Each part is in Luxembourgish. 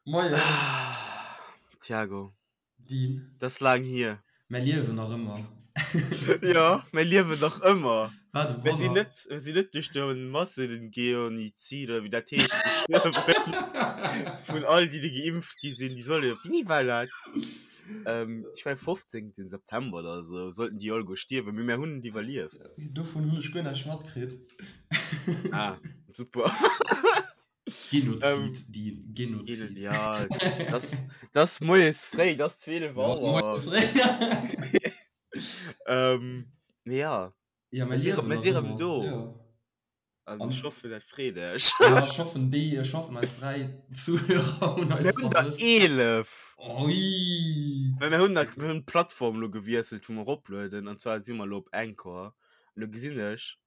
Moien. Thiago. Dean. Dat ass laang hier. Mär liewen nach ëmmer. Jo, mär liewen nach ëmmer. Wat e Mir sinn Wonner. net, mir sinn net duerch de Massengeonizid oder wéi dat heescht gestuerwen. Vun all déi, déi geimpft gi sinn, déi solle jo, wéini war dat? Ähm, ech mengen 15. September oder esou sollten déi alleguer stierwen, mee mär hunn et iwwerlieft. Dovun hunn ech guer näischt matkritt. Ah, super. Genozid, Ähm, Dean, Genozid. Ja, das, das moies fréi, das 12 Ja, Auer. moies fréi. Ähm, nee, ja. Ja, Mir mir si liewen mir nach si rëm ëmmer. do. Ja. An An ech hoffen, dat freet iech. ja, ech hoffen, déi, ech hoffen, eis 3 Zuhörer hunn Mir eis hunn der vermësst. 11. Oi! Well mir hunn dat, mir hunn d'Plattform lo gewiesselt, wou mer eroplueden, an zwar si mer lo op Anchor. An do gesinn ech,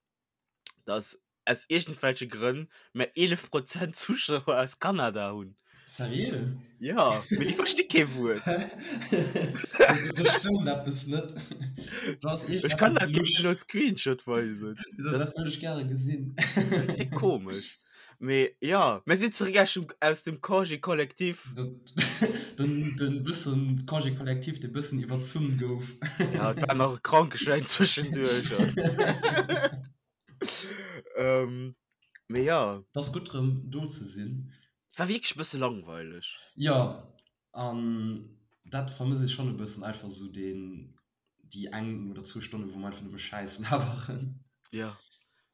dass aus iergendwelche Grënn mer 11 Prozent Zuschauer aus Kanada hunn. Seriö? Ja, mee déi versti kee Wuert. Hä? Do stëmmt eppes net. Do ass Ech kann iergendeppes dat lusch. gär elo Screenshot weisen. Dat Das, wëll ech gäre gesinn. dat ass déck komesch. Mee ja, mir sinn zeréck aus dem, aus dem Congé collectif. Den, den bëssen Congé collectif, dee bëssen iwwerzunn gouf. Ja, et war nach e Krankeschäin zwischenduerch. Ähm, mee ja. Et ass gutt rëm do ze sinn. Et war wierklech e bësse langweileg. Jo, an dat vermëss ech schonn e bëssen, einfach esou deen, déi eng oder zwou Stonne wou mer einfach nëmme Schäiss laberen. Jo,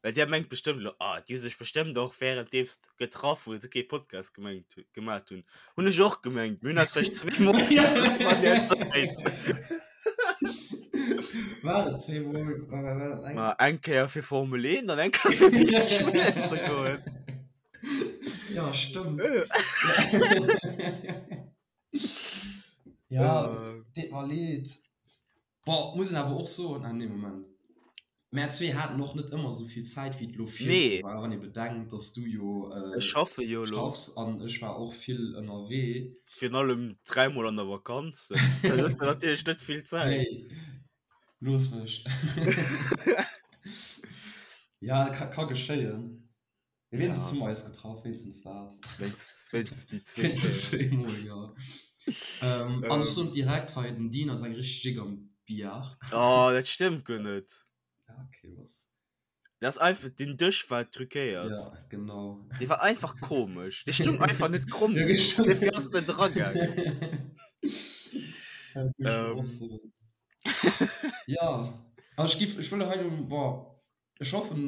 well där mengt bestëmmt elo, ah, déi hu sech bestëmmt och wärenddeems getraff wou se kee Podcast gemengt gemat hunn. Hunn ech och gemengt, mir hunn eis vläicht zweemol getraff an där Zäit. War et zweemol? War, war, war dat eng? Ma eng Kéier fir Formel 1 an eng Kéier fir Bierg spillen ze goen. Ja, stëmmt. Ja, deet mer leed. Bon, muss een awer och soen, ah nee, Moment. Mär zwee haten och net ëmmer esou vill Zäit, wéi et elo virdu Nee. war, wann ee bedenkt, dass du jo Ech schaffe jo elo. schaffs an ech war och vill ënnerwee. Virun allem dräimol an der Vakanz. Dat ass natierlech net vill Zäit. Nee, looss mech. Ja, ka, ka geschéien. Mee wéinstens Ja. hu mer eis getraff, wéinstens dat. Wéinstens, wéinstens déi zwee Wéinstens Kéier. zweemol, jo. Ähm, an ech soen direkt hei, den Dean ass eng richteg Jick am Billard. Oh, dat stëmmt guer net. Ja, okay, was? Dat ass einfach, den Dësch war truquéiert. Ja, genau. Dee war einfach komesch. Dee stung einfach net kromm Ja, genuch. stimmt. Dofir ass et net eragaangen. Ja, dat muss ech och Ähm. soen. Ja, an ech giff, ech wëll hei lo, boah, ech hoffen,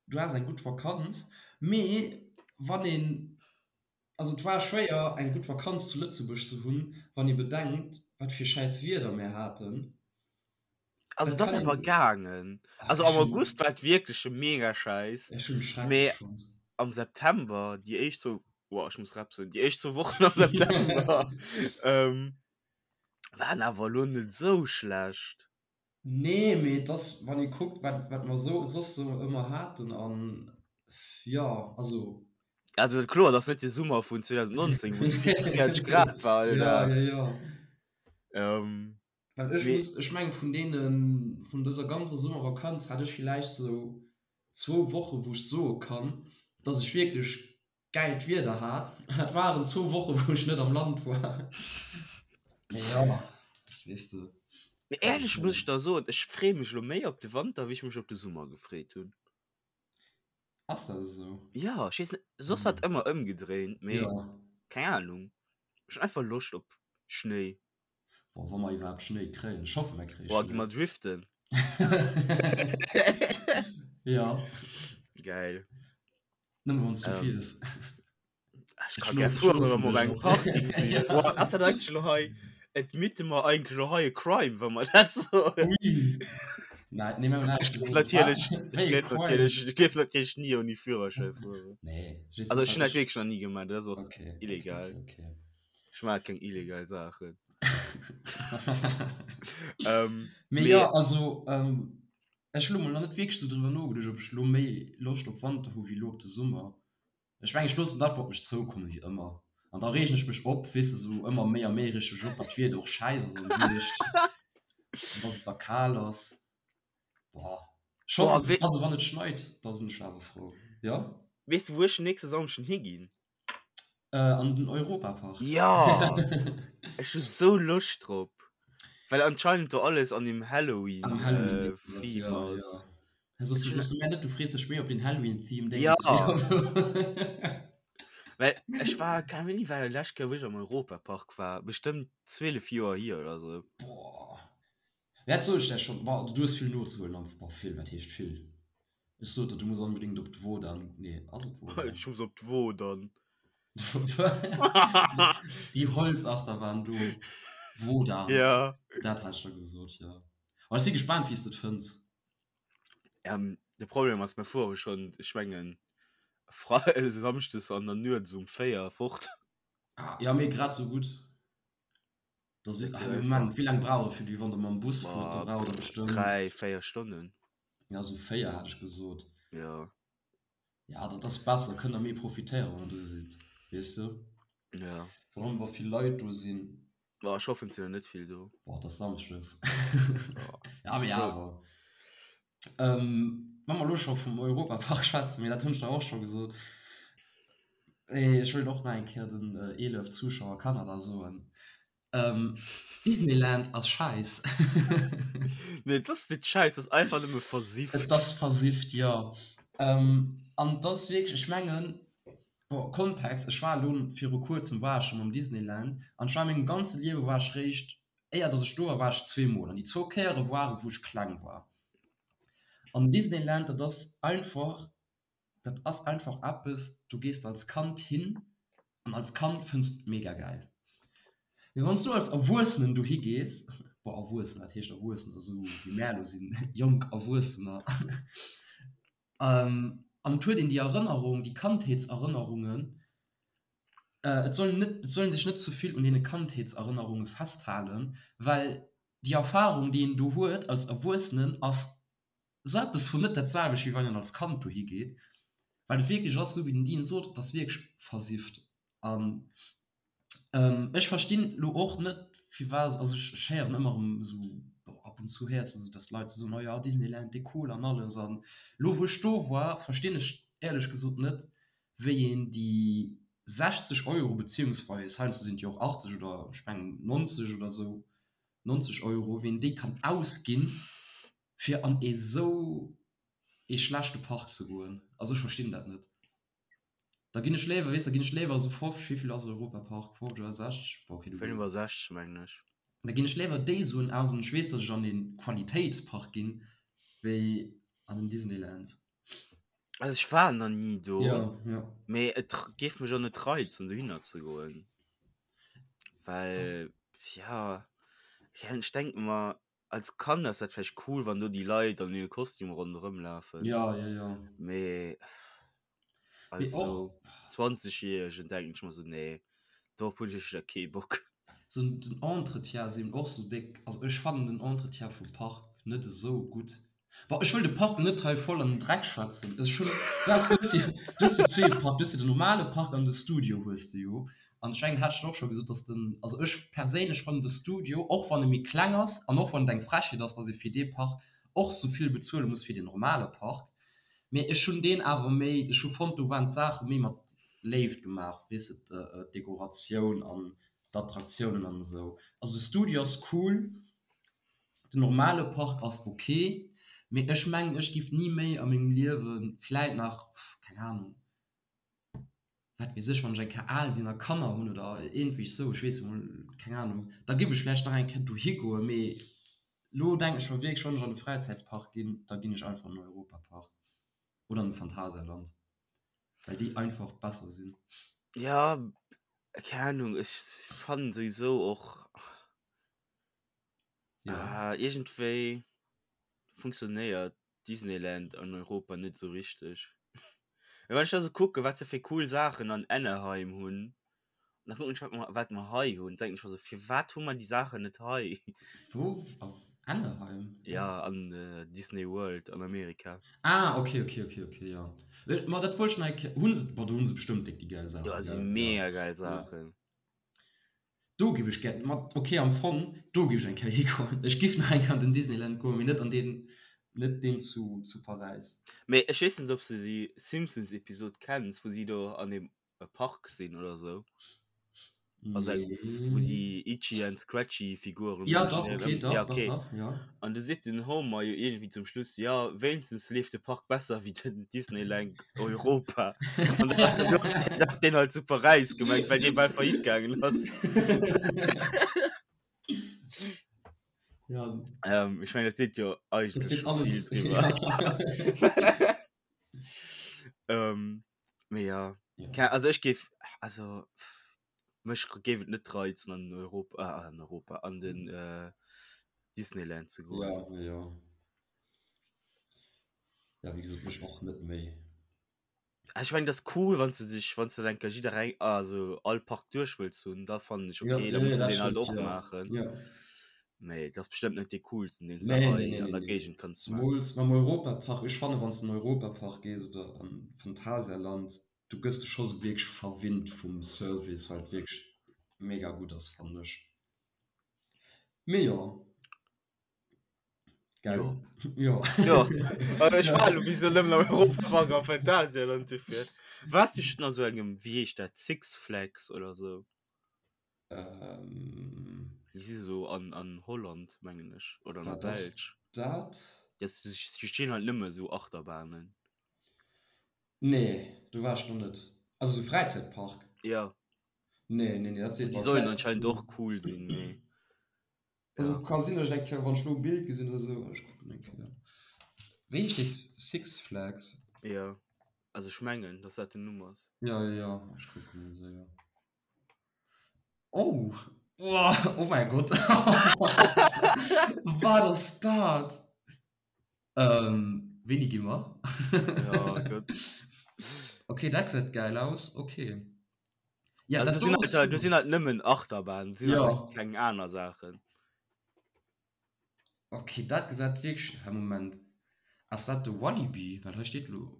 du has eng gutt Vakanz, mee wann een, also et war schwéier eng gutt Vakanz zu Lëtzebuerg ze hunn, wann ee bedenkt, wat fir schäiss Wieder mär haten. Also Dat et ass kann awer een, gaangen. ach Also ech am hunn, August war et wierklech mega schäiss, ech hunn schrecklech mee fonnt. am September, déi éischt zwou, boah ech muss repsen, déi éischt zwou Wochen am September ähm, waren awer elo net esou schlecht. Nee, mee et ass, wann ee kuckt, wat, wat mer sou, soss sou ëmmer haten an, jo, also. Also kloer, et ass net de Summer vun 2019, wou et 44 Grad war all Ja, Dag. ja, ja. Ähm, Well ech mee. muss, ech mengen, vun deenen, vun dëser ganzer Summervakanz hat ech villäicht sou zwou Woche wou ech soe kann, dass ech wierklech gäilt Wieder hat. An dat waren zwou Woche wou ech net am Land war. Mee jo, weess de. Mee éierlech muss ech der soen, ech freeë mech elo méi op de Wanter wéi ech mech op de Summer gefreet hunn. Ass dat esou? Jo, ech weess net, soss war et ëmmer ëmgedréint, mee Jo. keng Ahnung, ech hunn einfach Loscht op Schnéi. Boah, wa mer iwwerhaapt Schnéi kréien. Ech hoffe mer kréie Boah, gi Schnéi. mer driften. Jo. Geil. Nëmme wann s du Ähm, fiers. Ech Ech ka gär looss, ech fueren, wa loossen mer op dech engem och. Parking sinn. Ja. Boah, ass dat eigentlech elo hei, admitte mer eigentlech elo hei e Crime, wa mer dat soen? Ui. Nei, nee, mir hunn Ech näischt géif gesot. natierlech, Wat? ech Wéi e géif Crime? natierlech, ech géif natierlech ni ouni Führerschäin fueren. Nee, ech weess Also net, ech hunn wat dat ech. wierklech nach ni gemaach, dat ass och Okay, okay, illegal. okay, okay. Ech maache keng illegal Saachen. Ähm, Mee mee jo, also, ähm, ech hu lo mol nach net wierklech sou driwwer nogeduecht, ob ech lo méi Loscht op Wanter hu wéi lo op de Summer. Ech mengen, ech loossen et einfach op mech zoukommen, wéi ëmmer. An da reegen ech mech op, weess de, sou ëmmer méi a méi reeg ech mech op, datt d'Wieder och schäiss ass am Hierscht an datt et da kal ass. Boah, ech Boah, hoffen, wee also wann et schneit, da sinn ech awer frou, jo. Weess de, wou ech den nächste Samschden higinn? Äh, an den Europapark. Ja! Ech hu sou Loscht drop. Well anscheinend do alles an dem Halloween, Am Halloween äh, Theme ja, ass. Ja. Soss du soss du mär net, du frees dech méi op den Halloween-Theme, Ja. Well ech war, keine Ahnung, wéini war dat lescht Kéier, wou ech am Europapark war? Bestëmmt 12 Joer hier oder sou. Boah. Wat sot ech der schon? Boah, du hues vill nozehuelen am, boah, vill, wat heescht vill? Ech sot der, du muss onbedingt op d'Wodan. Nee, ass et Wodan? Ech muss op d'Wodan. Déi Holzachterbahn do. Wodan. Ja. Dat hat ech der gesot, jo. Aber ech si gespaant, wéi s de et fënns. Ähm, de Problem ass, mir fuere schonn, ech mengen, Fre Samschdes an der Nuet esou um 4 fort. Ah, ja, mee grad esou gutt. Da si, ah, Moment, wéi laang brauch e fir déi, wann der mam Bus fuert? Da braucht der bestëmmt. 3, 4 Stonnen. Ja, sou 4 hat ech gesot. Ja. Ja, dat ass besser, kënnt der méi profitéieren, wann der do sidd, weess de? Ja. Vor allem, wa vill Leit do sinn. Boah, ech hoffen, et sinn der net vill do. Boah, et ass Samschdes. Ja, mee awer. Ähm, wa mer elo scho vum Europapark schwätzen, mee dat hunn ech der och scho gesot, ech wëllt och nach eng Kéier den 11 Zuschauer Kanada soen, ähm, Disneyland ass schäiss. Nee, et ass net schäiss, et ass einfach nëmme versifft. Et ass versifft, jo. Ähm, an et ass wierklech, ech mengen, bon, Kontext, ech war elo viru kuerzem war ech schonn am Disneyland an ech war a mengem ganze Liewe war ech réischt Éier dass ech do war, war ech zweemol an déi zwou Kéiere waren, wou ech kleng war. An Disneyland, dat ass einfach, dat ass einfach eppes, do gees de als Kand hin an als Kand fënns de et mega gäil. Mee wann s du als Erwuessenen dohi gees, bon, Erwuessen, wat heescht Erwuessener, esou wéi mär elo sinn, jonk Erwuessener, an et huet een déi Erënnerung, déi Kandheetserënnerungen, Et soll net, et soll een sech net ze vill un deene Kandheetserënnerunge festhalen, well déi Erfarung, déi een do huet als Erwuessenen, ass esou eppes vun net dat selwecht, wéi wann een als Kand dohi geet, well et wierklech ass, esou wéi den Dean sot, et ass wierklech versifft. An ech verstinn elo och net, firwat, also ech héieren ëmmer erëm esou, bon, ab und zu héiers de esou, datt d'Leit esou soen, oh jo, Disneyland, dee cool an alles. An elo wou ech do war, verstinn ech éierlech gesot net, wéi een déi 60 Euro, beziehungsweis heiansdo sinn et jo och 80 oder ech mengen 90 oder esou, 90 Euro, wéi een déi kann ausginn, fir an esou ee schlechte Park ze goen. Also ech verstinn dat net. Da ginn ech léiwer, weess, da ginn ech léiwer esou 50, wéi vill ass Europapark, 50 oder 60? Bon, okay, du. 65 mengen ech. Da ginn ech léiwer déi Suen aus an ech weess, datt ech an ee Qualitéitspark ginn, wéi an den Disneyland. Also ech war nach nie do, Ja, ja. mee et géif mech och net reizen dohinner ze goen. Well ja, ja ech denk mer als Kand ass dat vläicht cool, wann do déi Leit an hire Kostüm ronderëm lafen. Ja, ja, ja. Mee Mee als och sou 20 Jähregen denken ech mer sou, nee, dorop hunn ech éischter kee Bock. Sou den Entretien ass eben och sou déck. Also ech fannen den Entretien vum Park net esou gutt. Bon, ech wëll de Park net hei voll an den Dreck schwätzen. Ech hunn, du has, du hues jo, du hues jo zwee Park, du hues jo den normale Park an de Studio hues de jo. An ech mengen, hat ech der och scho gesot, dass den, also ech perséinlech fannen de Studio, och wann e méi kleng ass an och wann et eng Frechheet ass, dass ee fir dee Park och sou vill bezuele muss wéi den normale Park, mee ech hunn deen awer méi, ech hu fonnt, do waren d'Saache méi mat Léift gemaach, weess de, d'Dekoratioun an d'Attraktiounen an esou. Also de Studio ass cool. Den normale Park ass ok, mee ech mengen ech giff ni méi a mengem Liewen, vläit nach, keng Ahnung, wat weess ech, wann ech eng Kéier al sinn a Kanner hunn oder iergendwéi sou, ech weess emol, keng Ahnung, da giff ech vläicht nach eng Kéier dohi goen, mee lo denken ech mer wierklech, wann ech an e Fräizäitpark ginn, da ginn ech einfach an den Europapark oder an de Phantasialand, well déi einfach besser sinn. Ja, keng Ahnung, ech fannen souwisou och. Ja. Ah, iergendwéi funktionéiert Disneyland an Europa net sou richteg. Mee wann ech da sou kucken, wat se fir cool Saachen an Anaheim hunn, an da kucken ech, wat mer, wat mer hei hunn, denken ech mer sou, firwat hu mer déi Saachen net hei? Wou? Auf Anaheim? Ja, an Disney World an Amerika. Ah, okay, okay, okay, okay, ja. Ma dat wollt ech nach eng Kéier, hu se, bon, do hu se bestëmmt déck déi gäil Do Saachen, si gell? Ja. mega gäil Ja. Saachen. Do giff ech gär, ma ok am Fong do giff ech eng Kéier higoen. Ech giff nach eng Kéier an den Disneyland goen, mee net an deen, net deen zu zu Paräis. Mee ech weess net ob s de déi Simpsons Episode kenns wou si do an dem. e Park sinn oder sou. Also eng, wou déi Itchy and Scratchy Figuren Ja, dach, okay, dach, ja, okay. dach, dach, ja. An du seet den Homer jo irgendwie zum Schluss, ja, wéinstens leeft de Park besser wéi den Disneyland Europa. An dat ass, dat ass deen halt zu Paräis gemengt, well dee bal faillite gaangen ass. Ja. Ähm, ech mengen, dat seet jo eigentlech scho vill driwwer. Ähm, mee ja. Ja. Also ech géif, also mech géif et net reizen an Europa, äh, an Europa, an den äh, Disneyland ze goen. Ja, ja. Ja, wéi gesot, mech och net méi. Ah, ech mengen, dat ass cool, wann s de dech, wann s de dann enker jiddereng, also all Park duerch wëlls hunn, da fannen ech Ja, okay, da ja, muss ja, de dat deen halt stëmmt, och ja. maachen. Ja. Mee dat ass bestëmmt net dee coolsten, deen s de Nee, nee, hei nee, an nee, der nee. Géigend kanns maachen. Zemools mam Europapark. Ech fannen, wann s de an den Europapark gees oder an Phantasialand, du gëss de scho sou wierklech verwinnt vum Service, well et wierklech mega gutt ass, fannen ech. Mee jo. Gell? Jo. Jo. Jo. Also ech war elo bis elo nëmmen am Europapark am Phantasialand dofir. Waars du schonn a sou engem, wéi heescht dat, Six Flags oder sou? Ähm. Déi si sou an, an Holland, mengen ech, oder an der Wat ass Belsch. dat? Ja, si stinn halt nëmme sou Achterbahnen. Nee, do war ech nach net. Also sou Fräizäitpark? Ja. Nee, nee, nee, dat seet Déi mer. sollen Vläicht anscheinend och cool sinn, mee. Also Ja. ka sinn, datt ech eng Kéier, wann ech lo e Bild gesinn oder sou, ech kucken eng Kéier. Wéi heescht dee Six Flags? Ja, also ech mengen, datt dat den Numm ass. Ja, ja, ja, ech kucken mol séier. Oh! Oh mäi Gott! Wat ass dat? Ähm, wéini gi mer? Ja, gutt. Okay, dat gesäit geil aus. Okay. Ja, Also dat do sinn do halt, ass do sinn halt nëmmen Achterbahnen, do sinn halt Ja. net keng aner Saachen. Okay, dat gesäit wierklech, hä Moment, ass dat de Walibi? Well hei steet lo.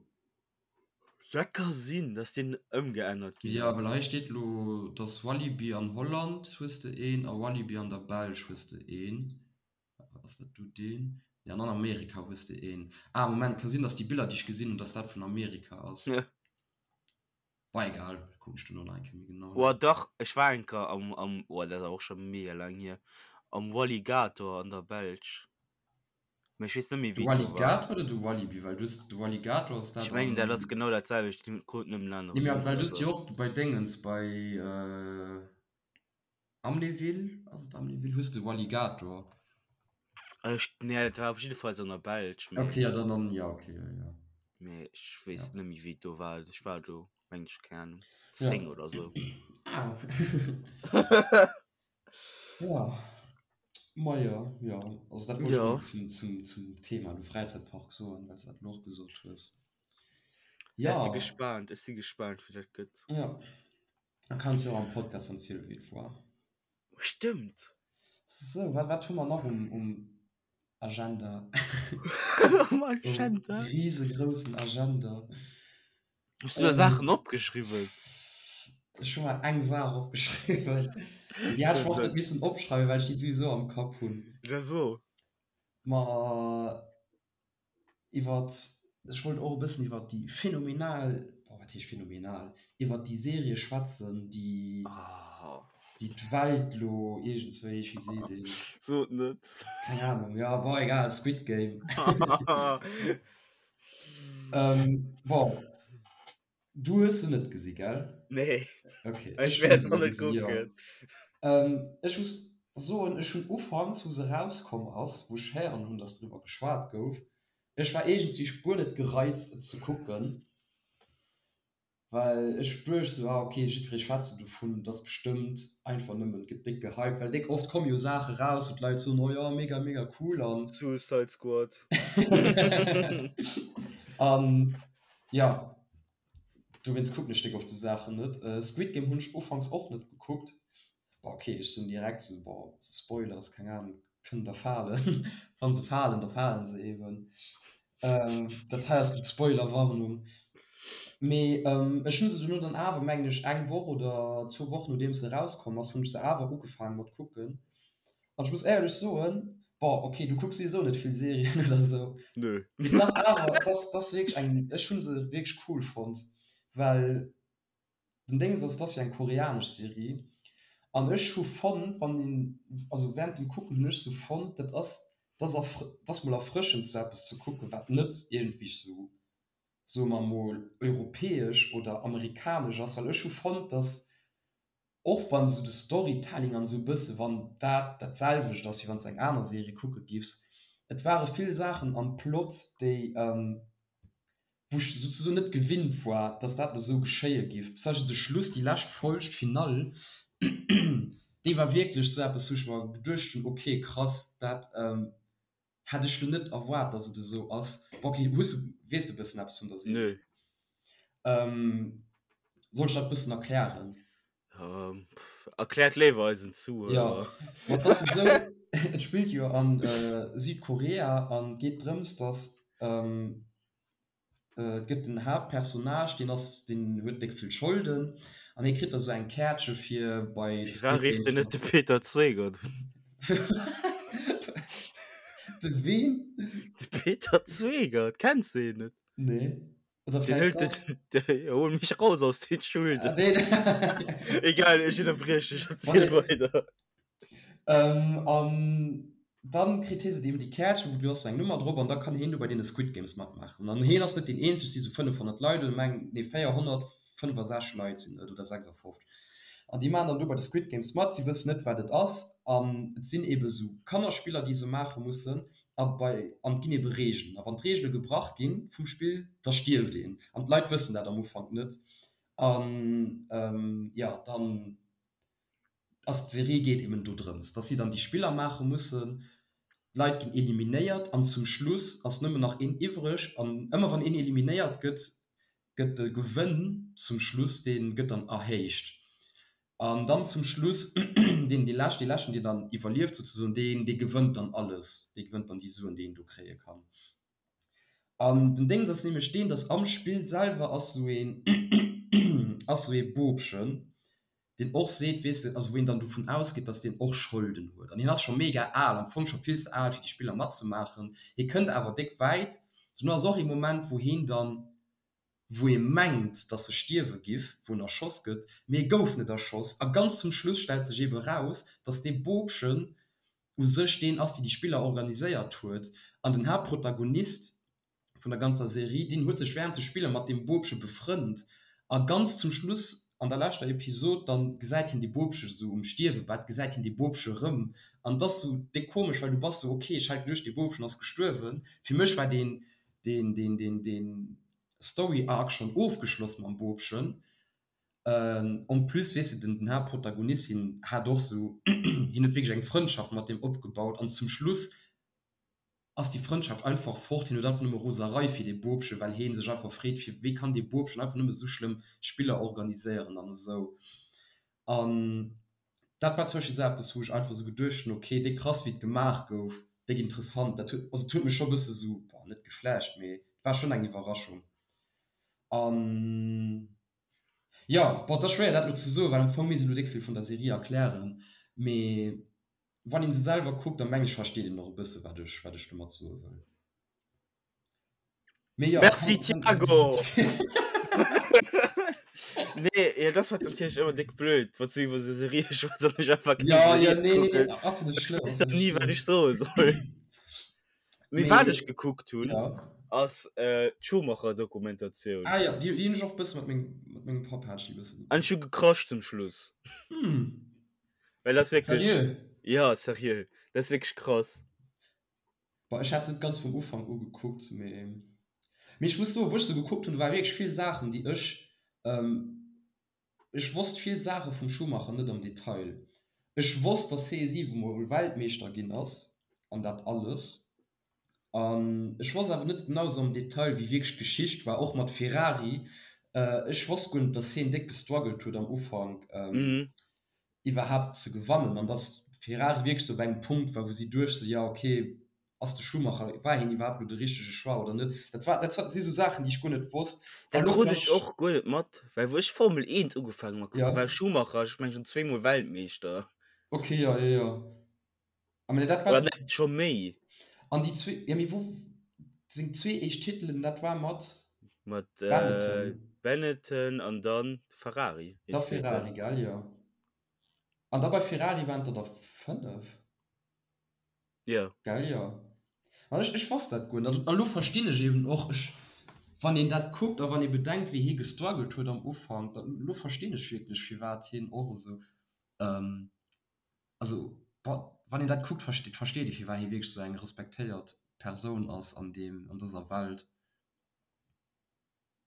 Dat ka sinn, dass deen ëmgeännert ginn Ja, well ass. hei steet lo, dass Walibi an Holland hues de een a Walibi an der Belsch hues de een. Ass dat do deen? Nee, an an Amerika hues de een. Ah, Moment, ka sinn, dass déi Biller, déi ech gesinn hunn, dass dat vun Amerika ass. Ja. Bah, egal, kucken ech duerno nach eng Kéier méi genau no. Oh dach, ech war eng Kéier am, am, oh dat ass awer och scho mega laang hier, am Walligator an der Belsch. Mee ech weess net méi, De wéi et do war. Walligator oder de Walibi? Well du hues, de Walligator ass Ech dat mengen, dat ass an. genau dat selwecht, déi kruten nëmmen en Nee, aneren mee Numm well oder du hues sou. jo och bei Déngens, bei. Amnéville, ass et Amnéville? Hues de Walligator? Ech, nee, dat war op jiddefalls an der Belsch, mee. Okay, ja, dann an, ja, okay, ja, ja. Mee ech weess Ja. net méi, wéi et do war. Also ech war do, meng ech, keng Ahnung, Ja. 10 oder sou. Ah. Ja. Ma jo, jo. Also dat wollt ech Ja. nëmmen zum, zum, zum Thema du Fräizäitpark soen, well s de dat elo och gesot hues. Ja, ech si Ja. gespaant, ech si gespaant, wéi dat gëtt. Ja. Da kanns jo am Podcast erzielen, wéi et war. Stëmmt! Sou, wat, wat hu mer nach um, um Agenda? Um Agenda? Um risegroussen Agenda. Hues du der Saachen opgeschriwwen? Ech hu mer eng Saach opgeschriwwen. Déi hat ech mer och net missen opschreiwen, well ech déi souwisou am Kapp hunn. Ja, so. Ma iwwert, ech wollt och e bëssen iwwert déi phänomenal, boah, wat heescht phänomenal, iwwert déi Serie schwätzen, déi, déi d'Welt lo iergendswéi, wéi seet een? Sot net. Keng Ahnung, ja, bon, egal, Squid Game. Bon, du hues se net gesi, gell? Nee. Okay. Ech wäert se net kucken. Ech muss soen, ech hunn ufanks, wou se erauskomm ass, wou ech héieren hunn, dass driwwer geschwat gouf, ech war iergendswéi guer net gereizt, et ze kucken, well ech duecht sou, ah okay, jiddweree schwätzt sou dovun, et ass bestëmmt einfach nëmmen, et gëtt déck gehypt, well déck oft komme jo Saache raus, wou d'Leit soen, oh jo, mega, mega cool an. Suicide Squad. An jo, Dowéinst kucken ech déck oft sou Saachen net. Squid Game hunn ech ufanks och net gekuckt. Bon ok, ech soen direkt sou, bon Spoilers, keng Ahnung, kënnen der falen. Wann se falen, da falen se eben. Dat hei ass gutt Spoilerwarnung. Mee ech hunn se dono dann awer, mengen ech, eng Woch oder zwou Wochen nodeems se erauskomm ass, hunn ech se awer ugefaangen mat kucken. An ech muss éierlech soen, bon, ok, du kucks souwisou net vill Serien oder esou. Nö. Mee dat ass awer, dat ass, dat ass wierklech eng, ech hu se wierklech cool fonnt, well Den Déngs ass, et ass jo eng koreanesch Serie an ech hu fonnt, wann een, also während dem Kucken hunn ech sou fonnt, dat ass, dat ass erfr, dat ass mol erfrëschend sou eppes ze kucken, wat net iergendwéi sou, soe mer mol, europäesch oder amerikanesch ass, well ech hu fonnt, dass och wann esou de Storytelling an esou e bësse wann dat dat selwecht ass wéi wann s de eng aner Serie kucke giffs, et ware vill Saachen am Plot déi wou ech souzesoen net gewinnt war, dass dat elo esou geschéie giff. Zum Beispill de Schluss, déi lescht Folg, d'Finall, déi war wierklech esou eppes wou ech mer geduecht hunn, ok krass, dat Hätt ech lo net erwaart dass et esou ass. Bon ok, hues du, weess de bëssen eppes vun der Serie? Nö. Ähm, soll ech dat bëssen erklären? Ähm, pff, erkläert léiwer eisen Zuhörer. Ja, ma et ass esou, et spillt jo an Südkorea an geet drëms dass ähm, Et gëtt den Haaptpersonnage, deen ass, deen huet déck vill Scholden an hie kritt da sou eng Käertche fir bei de Firwat Squid rifft en Games net de Peter Zweigert un? De ween? De Peter Zweigert, kenns de hien net? Nee. Oder Den vläicht hëlt dach. den, de, hol mech raus aus den Schulden. Ah, deen. Egal, ech ënnerbrieche dech, erziel weider. Ähm, an dann kritt hie se eben déi Käertchen, wou du ass sou eng Nummer drop an da kann hien do bei deene Squid Games matmaachen. An hien ass net deen eenzeg, et si sou 500 Leit oder meng, nee 465 Leit sinn et oder 56. An déi maachen dann do bei de Squid Games mat, si wëssen net wat et ass an et sinn ebe sou Kannerspiller déi se maache mussen a bei an et ginn ebe Reegelen a wann d'Reegele gebrach ginn vum Spill, da stierft een an d'Leit wëssen dat am Ufank net an jo dann ass d'Serie geet eben dodrëms, dass si dann déi Spiller maache mussen, d'Leit ginn eliminéiert an zum Schluss ass nëmmen nach een iwwreg an ëmmer wann een eliminéiert gëtt, gëtt de Gewënn zum Schluss, dee gëtt dann erhéicht an dann zum Schluss deen dee lescht, dee leschten deen dann iwwerlieft souzesoen, deen dee gewënnt dann alles, dee gewënnt dann déi Suen déi een do kréie kann. An den Déngs ass nämlech deen, dass am Spill selwer ass sou een ass sou ee Bobchen, deen och seet, weess de, also wou een dann dovun ausgeet, dass deen och Scholden huet. An hien ass scho mega al, am Fong scho vill ze al fir déi Spiller matzemaachen. Hie kënnt awer déck wäit. Dono ass och ee Moment, wou hien dann, wou ee mengt, dass e stierwe giff, wou en erschoss gëtt, mee e gouf net erschoss. A ganz zum Schluss stellt sech eebe raus, dass dee Bobchen u sech deen ass, deen déi Spiller organiséiert huet. An den Haaptprotagonist vun der ganzer Serie, deen huet sech während de Spiller mat deem Bobche befrënnt a ganz zum Schluss an der leschter Episod dann gesäit hien dee Bobche sou um Stierwebett, gesäit hien dee Bobche rëm an et ass sou déck komesch, well du bass sou, ok, ech hat geduecht dee Bobchen ass gestuerwen. Fir mech war deen deen deen deen deen Story Arc schonn ofgeschloss mam Bobchen. En plus weess de den den Haaptprotagonist hien hat och sou hien huet wierklech eng Frëndschaft mat deem opgebaut an zum Schluss ass déi Frëndschaft einfach fort. Hien huet einfach nëmme Roserei fir dee Bobchen, well hee sech einfach freet, fir wéi kann dee Bobchen einfach nëmme sou schlëmm Spiller organiséieren an esou. An dat war zum Beispill esou eppes, wou ech einfach esou geduecht hunn, okay, déck krass wéi et gemaach gouf, déck interessant. Dat huet, also et huet mech scho e bësse sou, bon, net geflasht, mee et war schonn eng Iwwerraschung. An jo, bon, et ass schwéier dat elo ze soen, well am Fong misst een elo déck vill vun der Serie erklären, mee Wann een se selwer kuckt, dann meng ech versteet een och e bësse wat ech wat ech domat soe wëll. Mee jo, Merci kann, kann, Thiago! Nee, ja, das war natierlech ëmmer déck blöd, wann du iwwer sou Serië schwätz an ech einfach keng ja, ja, Serie nee, nee, kucken. nee, ass net Ech schlëmm, weess ass dann net ni, wat schlëmm. ech soe soll. Mee wat Mee ech gekuckt hunn, ja. ass äh, d'Schumacher-Dokumentatioun. Ah ja, déi, déi hunn ech och e bësse mat mengem, mat mengem Papp hat ech déi e bësse An ech gekuckt. hu gecrasht zum Schluss. Hm. Well das wirklich. Seriö? Ja, seriö. Das ist wirklich krass. Boah, ech hat se net ganz vum Ufank u gekuckt, mee mee ech muss soen, wou ech se gekuckt hunn, do ware wierklech vill Saachen, déi ech ähm, ech wosst vill Saache vum Schumacher net am Detail. Ech wosst, dass hee siwemol Weltmeeschter ginn ass an dat alles. An ech wosst awer net genau sou am Detail, wéi wierklech d'Geschicht war, och mat Ferrari. Ech wosst guer net, dass heen déck gestruggelt huet am Ufank iwwerhaapt ze gewannen an dass Ferrari wierklech sou op engem Punkt war, wou si duecht sou, jo okay, ass de Schumacher, war heen iwwerhaapt elo de richtege Choix oder net? Dat war, dat si sou Saachen, déi ech guer net wosst. Dat krut ech och guer net mat, well wou ech Formel 1 ugefaangen mat kucken, war Schumacher, ech mengen, schonn zweemol Weltmeeschter. Okay, jo, jo, jo. Ah, mee dat war. Oder net scho méi? An déi zwee, ja mee wou seng zwee éischt Titelen, dat war mat. Mat Benetton. Benetton an dann Ferrari. Da Ferrari, gell, jo. An da bei Ferrari waren et der der 5. Jo. Gell, jo. An ech, ech wosst dat guer net. An elo verstinn ech eben och, ech, wann een dat kuckt a wann ee bedenkt, wéi hie gestruggelt huet am Ufank, da elo verstinn ech wierklech, firwat hien och esou, also bon, wann een dat kuckt, versteet, versteet ee, firwat hie wierklech esou eng respektéiert Persoun ass an deem, an dëser Welt.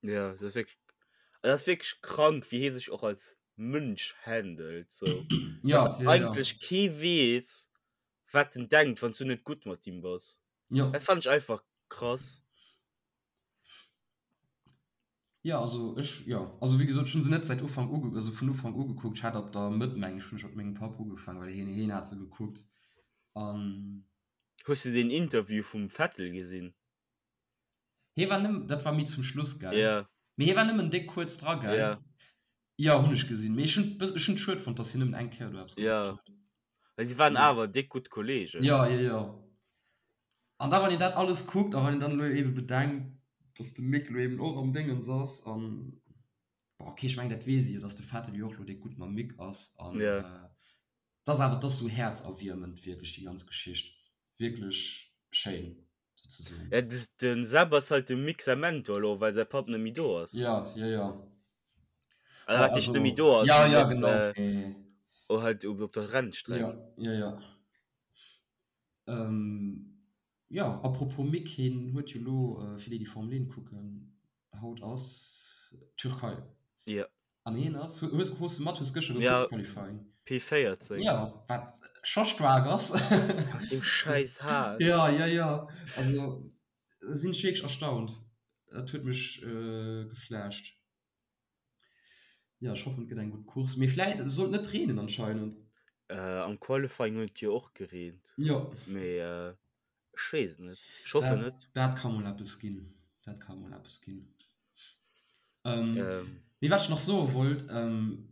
Ja, dat ass wierklech, dat ass wierklech krank, wéi hie sech och als Mënsch handelt, sou. Ja, Dass ja, ja. eigentlech kee weess, wat en denkt, wann s du net gutt mat him bass. Ja. Dat fannen ech einfach krass. Ja, also ech, jo, also wéi gesot, ech hunn se net säit Ufank uge, also vun Ufank u gekuckt. Ech hat ab der Mëtt, meng ech, hunn ech mat mengem Papp ugefaangen, well hien, hien hat se gekuckt. An. Hues du deen Interview vum Vettel gesinn? Hie war nëmmen, dat war méi zum Schluss, gell? Ja. Mee hie war nëmmen déck kuerz dra, gell? Ja. Jo, hunn ech gesinn. Mee ech hunn et ech hunn et schued fonnt, dass hien nëmmen eng Kéier do eppes gesot Ja. huet. Well si waren awer déck gutt Kollegen. Jo, jo, jo. An da wann een dat alles kuckt a wann een dann elo eebe bedenkt, dass de Mick elo eeben och am Déngens ass an, bon, okay, ech mengen dat weess ee jo, dass de Vettel jo och elo déck gutt mam Mick ass an, Ja. 't ass awer, 't ass sou häerzerwiermend wierklech déi ganz Geschicht. Wierklech schéin. Sozesoen. Ja, des, den Seb ass halt dem Mick säi Mentor elo, well säi Papp net méi do ass. Ja, ja, ja. Also, wat heescht net méi do ass, Ja, mee ja, net, genau. äh, Mee oh, halt op, op der Rennstreck. Ja, ja, ja. Ähm, ja, apropos Mick, hien huet jo elo, fir déi, déi Formel 1 kucken, haut ass Türkei. Ja. An hien ass, hues, hues de mat, hues gëschter gekuckt, ja, Qualifying? P14. Ja, wat scho staark ass. Mat deem schäiss Haas. Ja, ja, ja. Also sinn ech wierklech erstaunt. Dat huet mech geflasht. Ja, ech hoffen et gëtt eng gutt Course. Mee vläit, et sollt net reenen anscheinend. Äh, am Qualifying huet et jo och gereent. Jo. Mee ech weess et net. Ech hoffen net. Dat ka mol eppes ginn. Dat ka mol eppes ginn. Ähm, ähm. Mee wat ech nach soe wollt, ähm,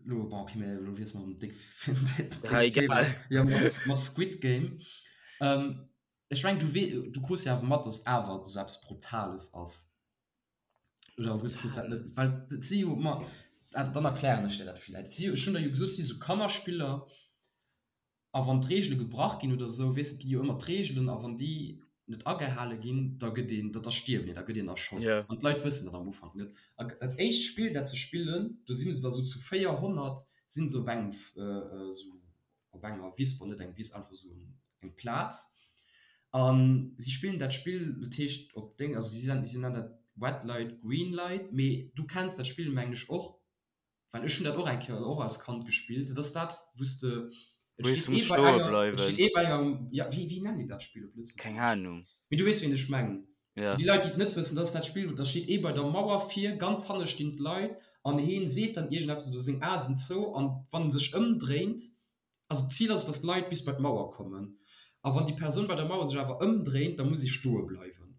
lo, bon, okay, mee lo wiesse mer erëm déck, déck Ja, egal. Ja, mat, mat Squid Game. Ähm, ech meng, du wee, du krus jo awer mat, dass awer esou eppes Brutales ass. Oder hues, krus dat net? Well et si jo, ma, ah, dann erklären ech dir dat vläicht. Et si jo, ech hunn der jo gesot, et si sou Kannerspiller. A wann d'Reegele gebrach ginn oder esou, weess de, et gi jo ëmmer d'Reegelen, a wann déi net agehale ginn, da gëtt een, da stierwen een, da gëtt een erschoss. An d'Leit wëssen dat am Ufank net. A dat éischt Spill, dat se spillen, do si se da sou zu 400, si se op engem, esou op enger Wiss, bon, net eng Wiss, einfach esou eng Plaz, a si spillen dat Spill, dat heescht op Déng, also si nennen dat Red Light, Green Light, mee du kenns dat Spill, mengen ech, och. Well ech hunn dat och eng Kéier och als Kand gespillt. Dat ass dat, wou s de, et Wou steet du muss ee bei stoe enger, et bleiwen. steet ee bei enger, ja, wéi, wéi nennt een dat Spill op Lëtzebuergesch? Keng Ahnung. Mee du weess, wéi ech mengen. Ja. Fir déi Leit, déi et net wëssen, dat ass dat Spill, wou da steet ee bei der Mauer vir, ganz hanne stinn d'Leit an heen seet dann iergendeppes oder seng Ae sinn zou an wann en sech ëmdréint, also d'Zil ass et, dass d'Leit bis bei d'Mauer kommen a wann déi Persoun bei der Mauer sech awer ëmdréint, da muss ee stoe bleiwen.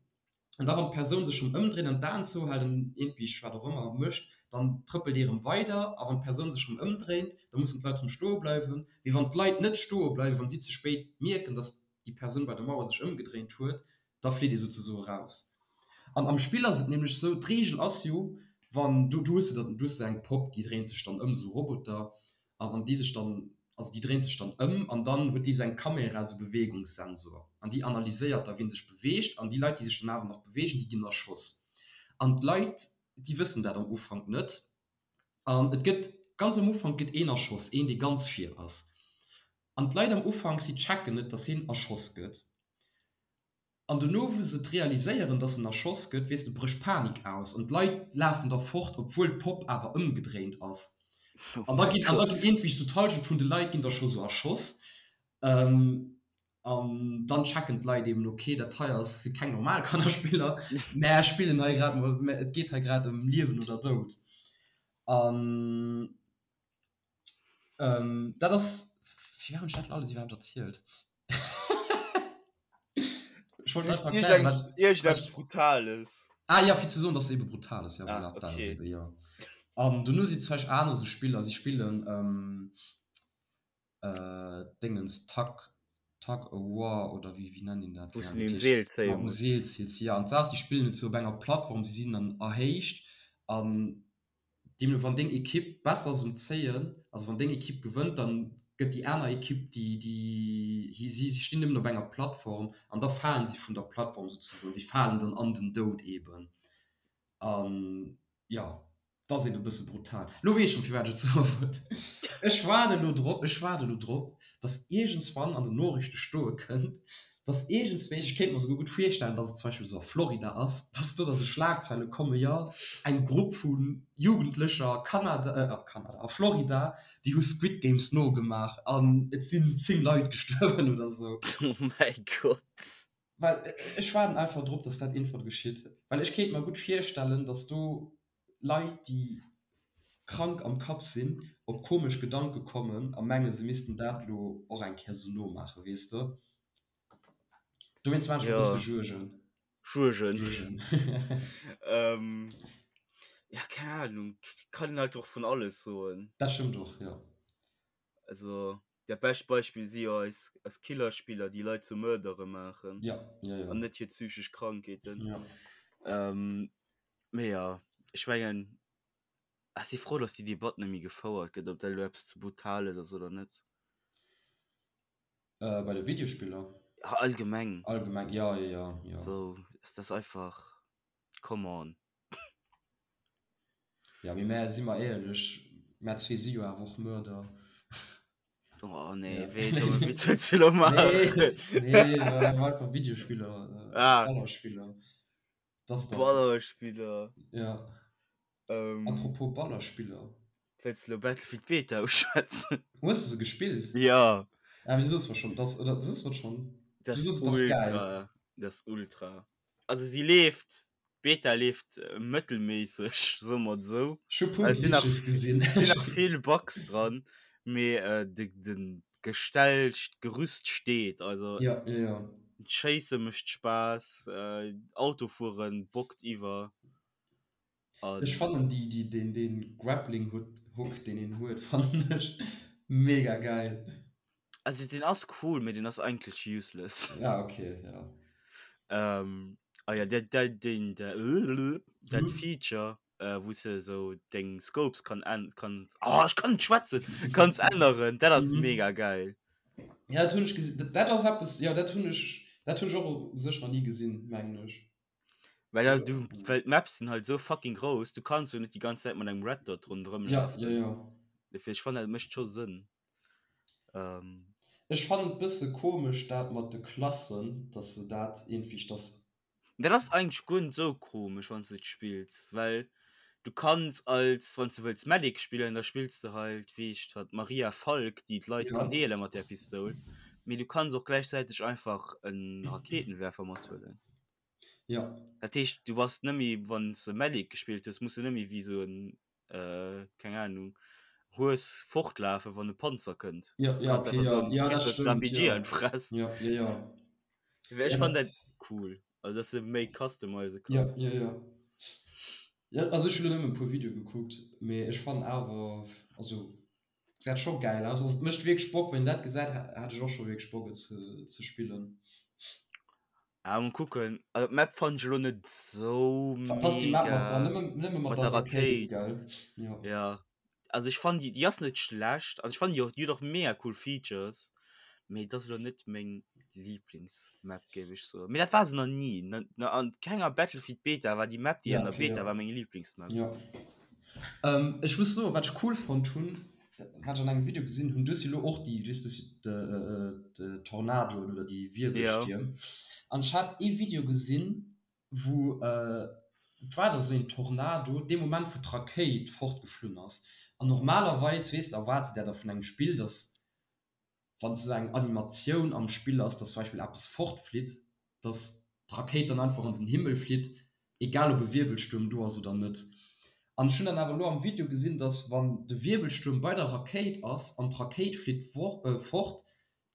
An da wann d'Persoun sech rëm ëmdréint an d'Aen zouhält an iergendwéi wat och ëmmer mécht, dann trëppelt ee rëm weider. A wann d'Persoun sech rëm ëmdréint, da mussen d'Leit rëm stoe bleiwen. Mee wann d'Leit net stoe bleiwen, wann si ze spéit mierken, datt déi Persoun bei der Mauer sech ëmgedréint huet, da flitt ee souzesoe raus. An am Spill ass et nämlech esou, d'Reegel ass jo, wann du, du hues de dann, du hues esou eng Popp, déi dréint sech dann ëm, esou Roboter, A wann déi sech dann, also déi dréint sech dann ëm an dann huet déi esou eng Kamera, esou Beweegungssensor an déi analyséiert da wien sech beweegt an déi Leit déi sech dann awer nach beweegen, déi ginn erschoss. An d'Leit déi wëssen dat am Ufank net an et gëtt ganz am Ufank gëtt een erschoss, een dee ganz vir ass an d'Leit am Ufank si checken net, datt hien erschoss gëtt. An dono wou se et realiséieren dass en erschoss gëtt, weess de, brécht Panik aus an d'Leit lafen da fort, obwuel d'Popp awer ëmgedréint ass. Oh An da mäi ginn, an da ginn Gott. iergendwéi sou d'Hallschent vun de Leit ginn da scho sou erschoss. An dann checken d'Leit eben, ok, dat hei ass, si keng normal Kannerspiller, mä spillen hei grad mol, mä et geet hei grad ëm Liewen oder Doud. An Ähm, dat ass, firwat hunn ech dat alles iwwerhaapt erzielt? Ech wollt einfach erklären, wat, Iergendeppes Brutales. Ah ja, fir ze soen, dass se ebe brutal ass, ja, Ah, voilà, dat ass okay. ebe, jo. An dono si zum Beispill aner sou Spiller, si spillen ähm, äh, Dingens, Tug, Tug of War oder wéi, wéi nennt een dat? Wou Keng s Ahnung, du dat um heescht Seel zéie mat um muss. Seel ziels, ja. An d'Saach ass, déi spillen et sou op enger Plattform, si sinn dann erhéicht. An deemno wann deng Ekipp besser ass um Zéien, also wann deng Ekipp gewënnt, dann gëtt déi aner Ekipp déi déi si si stinn nëmmen op enger Plattform an da falen si vun der Plattform souzesoen, si falen dann an den Doud eben. An jo, 't ass eben e bësse brutal. Lo weess ech schonn firwat ech et soe wollt. Ech waarde lo drop, ech waarde lo drop, dass iergendswann an den Noriichte stoe kënnt, dass iergendswéi, ech kéint mer souguer gutt virstellen, dass et zum Beispill esou a Florida ass, dass do da sou Schlagzeile kommen, jo, eng Grupp vu Jugendlecher a Kanada, a Kanada, a Florida, déi hu Squid Games nogemaach an et sinn 10 Leit gestuerwen oder sou. Oh mäi Gott. Well ech waarden einfach drop, dass dat iergendwann geschitt, well ech kéint mer gutt virstellen, dass do Leit, déi krank am Kapp sinn, op komesch Gedanke kommen a mengen, se missten dat elo och eng Kéier sou nomaachen, weess de? Dowéinst maache ech mer e bësse Juergen. Juergen. Juergen. Ja, keng Ahnung, kann een halt och vun alles soen. Dat stëmmt och, jo. Also, dat bescht Beispill si jo eis, eis Killerspiller, déi Leit zu Mördere maachen. Ja, ja, ja. An net hir psychesch Krankheeten. Ja. Ähm, mee jo, ech mengen, ech si frou, dass déi Debatt net méi gefouert gëtt, ob dat elo eppes ze Brutales ass oder net. Äh, bei de Videospiller? Ja, allgemeng. Allgemeng, ja, ja, ja, ja. So, das ist einfach, come on. Ja, mee mär, si mer éierlech, mär zwee si jo awer och Mörder. Oh nee, ja. wéi domme Witz wëlls du lo maachen? Nee, nee, war einfach Videospiller, äh, ah. Ballerspiller. Das da. Ballerspiller. Ja. Ähm, Apropos Ballerspiller. Wëlls du lo Battlefield Beta uschwätzen? Hues du se gespillt? Ja. Ah, wéi soos mer schon, das, oder soos mer schon? Das Du soos, das ist geil. ultra. Das ist ultra. Also sie leeft, d'Beta leeft mëttelméisseg, soe mer et esou. Ech hu puer Et sinn nach, Glitches gesinn. sinn nach vill Bugs dran, mee äh, de, den Gestell, d'Gerüst steet. Also Ja, ja, ja. d'Schéisse mécht Spaass, äh, Autofueren bockt iwwer. Ech An fannen déi, déi, deen, deen Grappling Hook, deen een huet, fannen ech mega geil. Also den ass cool, mee den ass eigentlech useless. Ja, okay, ja. Ähm, ah ja, dat, dat, den, der, dat Mhm. Feature, äh, wou s de sou deng Scopes kann än-, kann, oh, ech kann net schwätzen, kanns änneren, dat ass Mhm. mega geil. Ja, dat hunn ech gesinn. Dat, dat ass eppes, ja, dat hunn ech, dat hunn ech och u sech nach ni gesinn, mengen ech. Well ja, du, well d'Maps sinn halt sou fucking grouss, du kanns jo net déi ganz Zäit mat engem Red Dot ronderëm Ja, lafen. ja, ja. Dofir, ech fannen, dat mécht scho Sënn. Ähm. Ech fannen et bësse komesch dat mat de Klassen, dass se dat iergendwéi, dass. Dat ass eigentlech guer net sou komesch wann s de et spills, well du kanns als, wann s de wëlls Medic spillen, da spills de halt wéi heescht hatt, d'Maria Falk, déi d'Leit Ja. kann heele mat där Pistoul, mee du kanns och gläichzäiteg einfach en Raketenwerfer mathuelen. Ja. Dat heescht du bass net méi, wann s de Medic gespillt hues, muss de net méi wéi sou en äh, keng Ahnung, Hues fortlafen, wann e Panzer kënnt. Ja, Du ja, kanns okay, einfach ja, soen, ja, kriss dat dat stëmmt, RPG ja. an d'Fress. Ja, ja, ja. Ech Ja, fannen dat dat cool, also dass de méi customize Ja, kanns. ja, ja. Ja, also ech hunn elo nëmmen e puer Videoe gekuckt, mee ech fannen awer, also gesäit scho gäil aus. Also et mécht wierklech Bock, wann een dat gesäit, hat ech och scho wierklech Bock et ze, ze spillen. Ah, mol kucken. Also d'Map fannen ech elo net sou Dat ass déi Map mat der, mega. nëmme, nëmme mat Mat der der Rakéit, Rakéit. gell? Ja. Ja. Also ech fannen déi, déi ass net schlecht. Also ech fannen déi och, déi huet och mega cool Features. Mee et ass elo net meng Lieblingsmap, géif ech soen. Mee dat war se nach ni. Na, na, an kenger Battlefield Beta war déi Map, déi Ja, an der okay, Beta ja. war, meng Lieblingsmap. Ja. Ähm, ech muss soen, wat ech cool fonnt hunn, wat ech an engem Video gesinn hunn, du hues jo elo och déi, weess du, de Tornadoen oder déi Wirbelstierm. An ech hat ee Video gesinn, wou, et war da sou een Tornado, dee Moment wou d'Rakéit fortgeflunn ass. An normalerweis, weess de, erwaarts de der da vun engem Spill, datt wann esou eng Animatioun am Spill ass, dass zum Beispill eppes fortflitt, dass d'Rakéit dann einfach an den Himmel flitt, egal ob e Wirbelstuerm do ass oder net. An ech hunn dann awer elo am Video gesinn, dass wann de Wirbelstuerm bei der Rakéit ass an d'Rakéit flitt fort,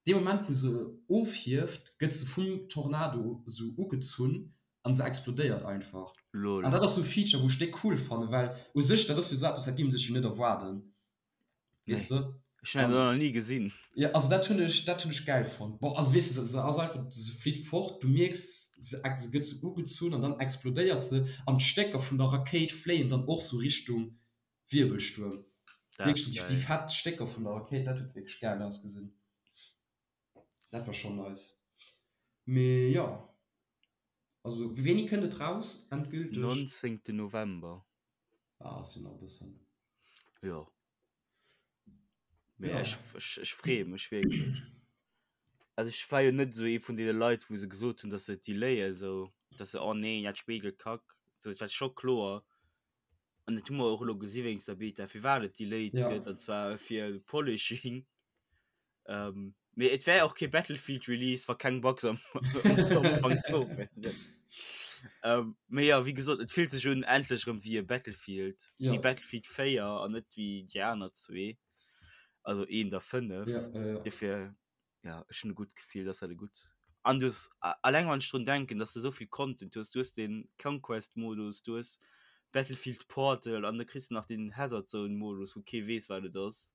dee Moment wou se ofhieft, gëtt se vum Tornado esou ugezunn an se explodéiert einfach. Lol. An dat ass esou e Feature wou ech déck cool fannen, well u sech dat ass jo esou eppes, dat géif ee sech jo net erwaarden. Nee. Weess de? Ech hunn dat nach ni gesinn. Ja, also dat hunn ech, dat hunn ech gäil fonnt. Bon, also weess de, se ass einfach, se flitt fort, du mierks, se, se gëtt sou ugezunn an dann explodéiert se an d'Stécker vun der Rakéit fléien dann och sou Richtung Wirbelstuerm. Dat ass Wierklech sou déi gäil. fett Stécker vun der Rakéit, dat huet wierklech gäil ausgesinn. Dat war schonn nice. Mee jo, also wéini kënnt et raus endgülteg? 19. November. Ah, ass jo nach e bëssen. Jo. Mee Ja. ech, ech, ech freeë mech wierklech. Also ech war jo net esou ee vun deene Leit, wou se gesot hunn, dass se et delayen, esou, dass se, oh nee, dat Spill gëtt kack. So, et war scho kloer, an dat hu mer och elo gesi wéinst der Beta, firwat et delayed Ja. gëtt, an zwar fir Polishing. Ähm, mee et wär och kee Battlefield Release, wa keng Bugs am, am Ufank do wären. Ähm, mee ja, wéi gesot, et fillt sech un endlech erëm wéi e Battlefield, Ja. wéi Battlefield 4 an net wéi déi aner zwee, also eent a 5. Ja, ja, ja. Dofir, ja, ech hunn e gutt Gefill, dass dat e gutt. An du hues, alleng wann ech drun denken, dass du esou vill Content hues, du hues den Conquest-Modus, du hues Battlefield Portal an da kriss de nach den Hazard Zone-Modus, wou kee weess, wat et ass.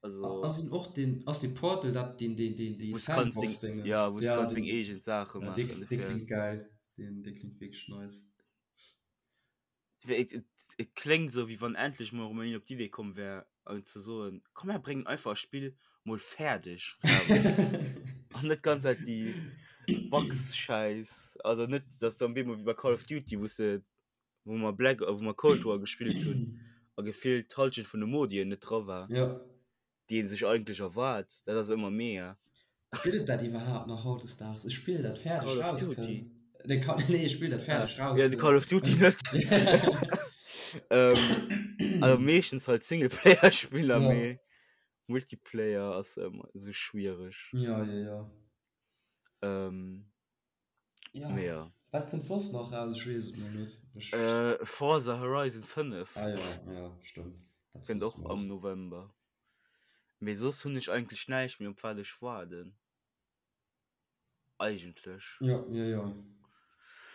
Also, Ass en och den, ass dee Portal dat deen, deen, deen, déi wou s kanns deng, Sandbox-Dingens? ja, wou s Ja, kanns deng deen, eegen Saache ja, dee, maachen, dee dofir. klingt geil. Deen, dee klingt wierklech nice. Dofir, et, et, et kléngt esou, wéi wann endlech mol erëm een op d'Idee komm wär, an ze soen, komm mir bréngen einfach e Spill mol fäerdeg raus. An net ganz Zäit déi Bugs-Schäiss. Also net, dass du am Bemol wéi bei Call of Duty, wou s de wou mer Black wou mer Cold War gespillt hunn a gefillt d'Halschent vun de Modien net dra war, Ja. déi een sech eigentlech erwaart. Dat ass ëmmer mega. Gëtt et dat iwwerhaapt nach hautdesdaags? E Spill dat fäerdeg Call of rauskënnt? Duty. Nee, Call, nee, e Spill dat Ah, fäerdeg ja, de rauskënnt. Call of Duty net. Ähm, also meeschtens halt Singleplayer-Spiller, Ja. mee Multiplayer ass ëmmer esou schwiereg. Ja, ja, ja. Ähm, Ja. Mee ja. Wat kënnt soss nach raus? Ech weess et mol net. Ech... Äh, Forza Horizon 5. Ah ja, ja, stëmmt. Dat kënnt och am November. Mee soss hunn ech eigentlech näischt méi op wat ech waarden. Eigentlech. Ja, ja, ja.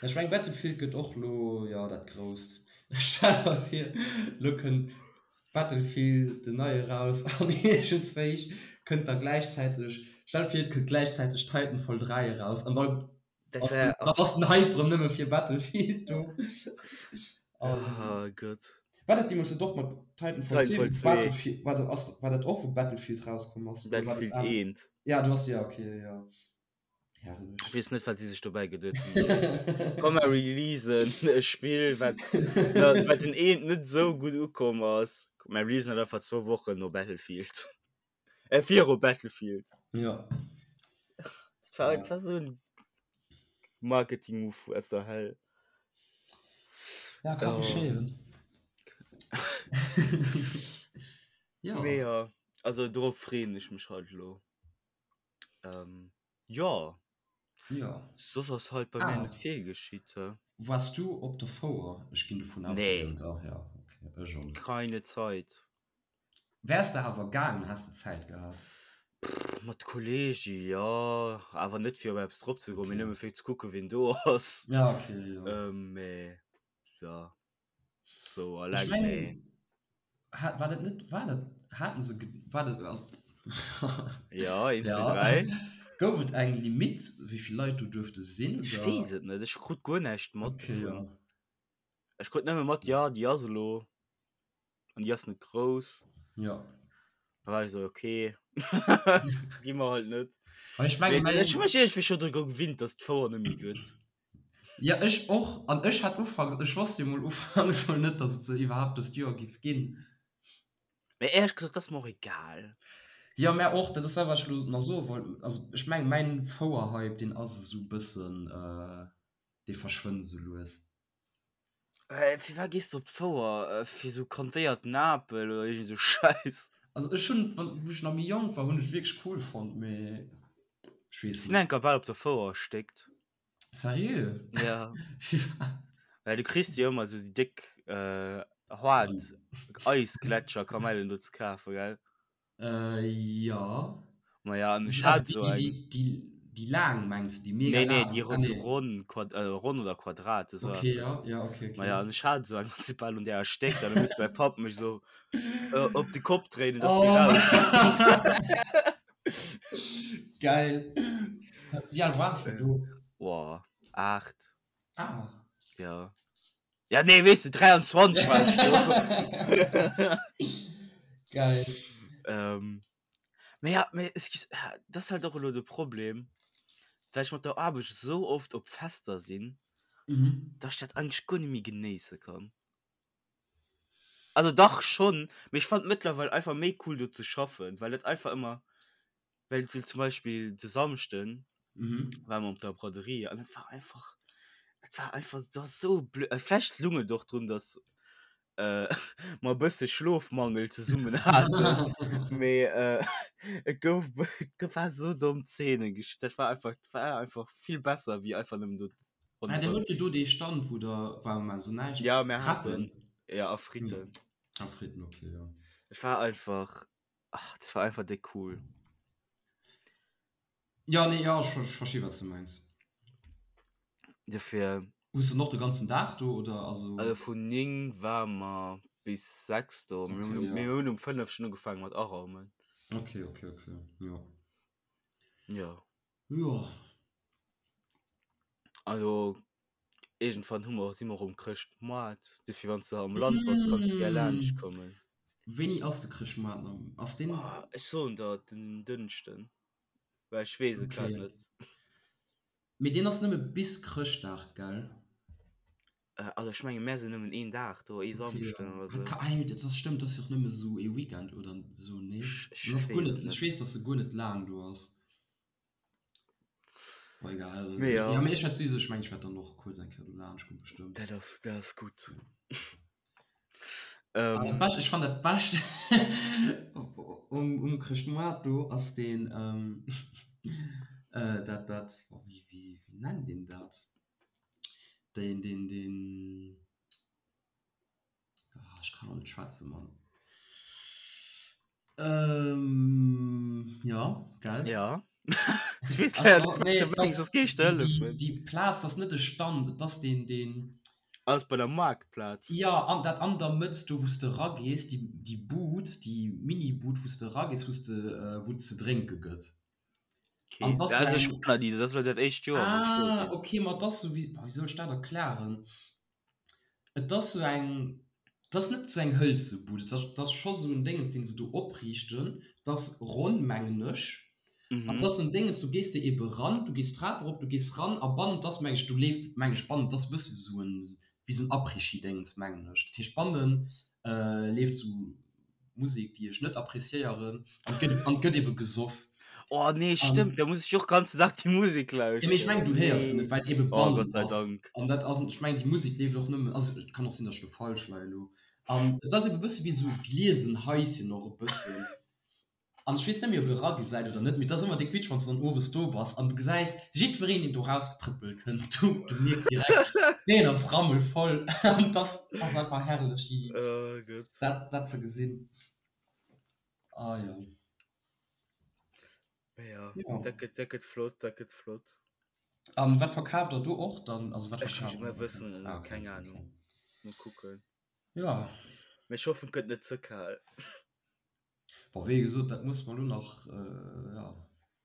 Ech meng Battlefield gëtt och lo, ja, dat grousst. Stell der vir, lo kënnt Battlefield den neie raus an iergendswéi kënnt da gläichzäiteg, stell der vir et kënnt gläichzäiteg Titanfall 3 eraus an dann Dat wär, dann ass den Hype rëm nëmme fir Battlefield do. An oh Gott. war dat deemools net och mat Titanfall 2 Titanfall wou 2. Battlefield, war dat, ass, war dat och wou Battlefield rauskomm ass oder war dat Battlefield aner? 1. Ja, du ass, ja okay, ja. Herrlech. Ich weess net, wat si sech dobäi geduet hunn. Komm mer releasen e Spill, wat, na, wat den eent net sou gutt ukomm ass. Mer releasen dat einfach zwou Wochen no Battlefield. Äh, viru Battlefield. Ja. Dat war, dat war sou en Marketing-Move aus der Hell. Ja, ka Oh. geschéien. Ja. Mee ja, also dorop freeën ech mech halt elo. Ähm, ja. Ja. Soss ass halt bei mir Ah. net vill geschitt. Hä? Wars du op der Fouer? Ech ginn dovun aus, Nee. oder? Ja, okay. Ech och net. Keine Zeit. Wärs de awer gaangen, häss de Zäit gehat? Pff, mat Kollege jo, awer net fir op eppes drop ze goen, mee Okay. nëmme fir ze kucken, wien do ass. Ja, okay, jo. Ähm, mee ja. So Ech alleng nee. mengen, hat, war dat net, war dat, haten se, war dat, also, Ja, 1, 2, ja, 3. gouf et eng Limite, wéi vill Leit do duerfte sinn, Ech oder? weess et net, ech krut guer näischt mat Okay, dovun. ja. Ech krut nëmme mat, ja, déi ass elo an déi ass net grouss. Ja. Da war ech sou, okay, gi mer halt net. Aber ech menge, Mee ech hu mäin, mech iergendwéi scho dru gewinnt, dass d'Fouer net méi gëtt. Ja, ech och. An ech hat ufanks, ech wosst jo mol ufanks mol net, dass et se iwwerhaapt dëst Joer giff ginn. Mee éierlech gesot, dat ass mer och egal. Jo, mär och. Dat ass dat, wat ech elo nach soe wollt. Also ech mengen, mäin Fouer-Hype, deen ass esou bëssen, dee verschwënnt esou lues. Firwat gees de op d'Fouer? Fir esou kantéierten Apel oder iergend esou Schäiss? Also ech hunn, wann, wou ech nach méi jonk war, hunn ech et wierklech cool fonnt, mee ech weess Ech sinn net. enker bal op der Fouer erstéckt. Seriö? Ja. Well du kriss jo ëmmer esou déi déck äh, haart Eisgletscherkamellen do ze kafen, gell? Äh, ja. Ma ja, an ech Also hat déi, esou déi, eng. déi, déi. Déi laang mengs de, déi mega Nee, nee, laang? déi Ah, ron, nee. ronn, Quad, äh, ronn oder Quadrat, esou Okay, eppes. ja, ja, okay, okay. Maja, an ech hat esou eng, an si bal un där erstéckt, an du muss mäi Papp mech esou äh, op de Kopp dréinen, dass déi Oh. rauskënnt. Geil. Wéi al waars de do? Boah, 8. Ah. Ja. Ja, nee, weess de, 23 war ech do. Geil. Ähm, Mee ja, mee excuse, dat ass halt och elo de Problem, well ech mat der Aarbecht esou oft op Fester sinn, Mhm. dass ech dat eigentlech guer net méi genéisse kann. Also dach schonn, mee ech fannen et mëttlerweil einfach méi cool do ze schaffen, well et einfach ëmmer, well sou zum Beispill de Samschden Mhm. ware mer op der Braderie an et war einfach, et war einfach, et war esou blöd, vläicht lung et och drun, dass äh, mer e bësse Schlofmangel zesummen haten. Mee äh, et gouf et war so domm Zeenen gesch dat war einfach dat war einfach vill besser wéi einfach nëmmen do Ah, der huet jo do dee Stand, wou der war mar so näischt. Ja, mir Crepen. haten ja a Fritten. A Fritten, okay, ja. Et war einfach ach, dat war einfach déck cool. Ja, nee, ja, ech, ech versti wat s de mengs. Dofir. Hues de och de ganzen Dag do oder also? Also vun 9 ware mer bis 6 do. Mir hunn Okay, ja. mir hunn um 5 schonn ugefaange mat araumen. Okay, okay, okay, jo. Jo. Jo. Also iergendwann hu mer si mer um Chrëschtmoart. Dofir wann s de am Land bass, kanns de gär laanscht kommen. Wéini ass de Chrëschtmoart nach? Ass deen? Ech soen der den Dënschden. Well ech weess et grad Okay. net. Mee deen ass nëmme bis Chrëschtdag, gell? Äh, also ech menge mär sinn nëmmen een Dag do, ee Okay, Samschden ja. oder sou. Ah, jo, dat ass stëmmt, dat ass jo och nëmme sou ee Weekend oder sou, nee? Ech, ech Dat ass guer weess et net, ech net. weess, dass e guer net laang do ass. Boah, egal. Mee ja. Ja, mee ech wäert souwisou, ech mengen, ech wäert dann och kuerz eng Kéier do laanscht kommen, bestëmmt. Dat ass, dat ass gutt. Ah, dat Ähm. Bescht, ech fannen dat Bescht um, um Chrëschtmoart do ass deen, ähm, äh, dat, dat, oh, wéi, wéi, wéi nennt een dat? Deen, deen, deen, ah, ech kann och net schwätzen, Mann. Ähm, ja, gell? Ja. Ech weess Also, leider net, wat nee, du mengs, das, soss géif ech der déi, déi, hëllefen. déi Plaz, das ass net de Stand, et ass deen, deen. Ass bei der Maartplaz. Ja, an dat an der Mëtt do, wou s de eragees, déi, déi Bud, déi Mini-Bud, wou s de eragees, wou s de, wou et ze drénke gëtt. Okay. An 't ass Ja, sou also ech eng. war nach ni do, dat ass elo dat éischt Joer, wou ech do Ah, sinn. okay, ma 't ass sou, wéi, wéi soll ech dat erklären? Et ass sou eng, 't ass net sou eng hëlze Bud, et ass, 't ass scho sou en Déngens, deen se do opriichten, 't ass ronn, mengen ech. An 't Mhm. ass sou en Déngens, du gees de ebe ran, du gees d'Trap erop, du gees ran a bannen, 't ass, meng ech, do leeft, meng ech, bannen, 't ass e bësse wéi sou en, wéi sou en Après-Ski-Déngens, mengen ech. Dat heescht, bannen leeft sou Musek, déi ech net appréciéieren, an 't gëtt, an 't gëtt ebe gesoff. Oh nee, An stëmmt, da muss ech och ganzen Dag déi Musek Ja, mee ech mengen, lauschteren. du héiers se Nee. net, well et ebe Oh, bannen Gott sei ass. Dank. An dat ass, ech mengen, déi Musek leeft och nëmmen, also et kann och sinn, datt ech do falsch leien elo. An et ass ebe e bësse wéi esou gliesen Haischen och e bëssen. An ech weess net méi, ob e eragesäit oder net, mee et ass ëmmer déck witzeg, wann s de dann owes do bass an du gesäis jiddwereen, deen do rausgetrëppelt kënnt, du, du mierks direkt, deen ass rammelvoll. An et ass, ass einfach herrlech, déi, Oh Gott. dat, dat ze gesinn. Ah jo. Ja, Ja. dat gëtt, dat gëtt flott, dat gëtt flott. An wat verkaaft der do och dann? Also wat Ech verkaaft mer der? wëssen et Ah, net, okay, keng okay. Ahnung. Mol kucken. Ja. Mee ech hoffen, et gëtt net ze kal. Bon, wéi gesot, dat muss mer lo nach, äh, ja.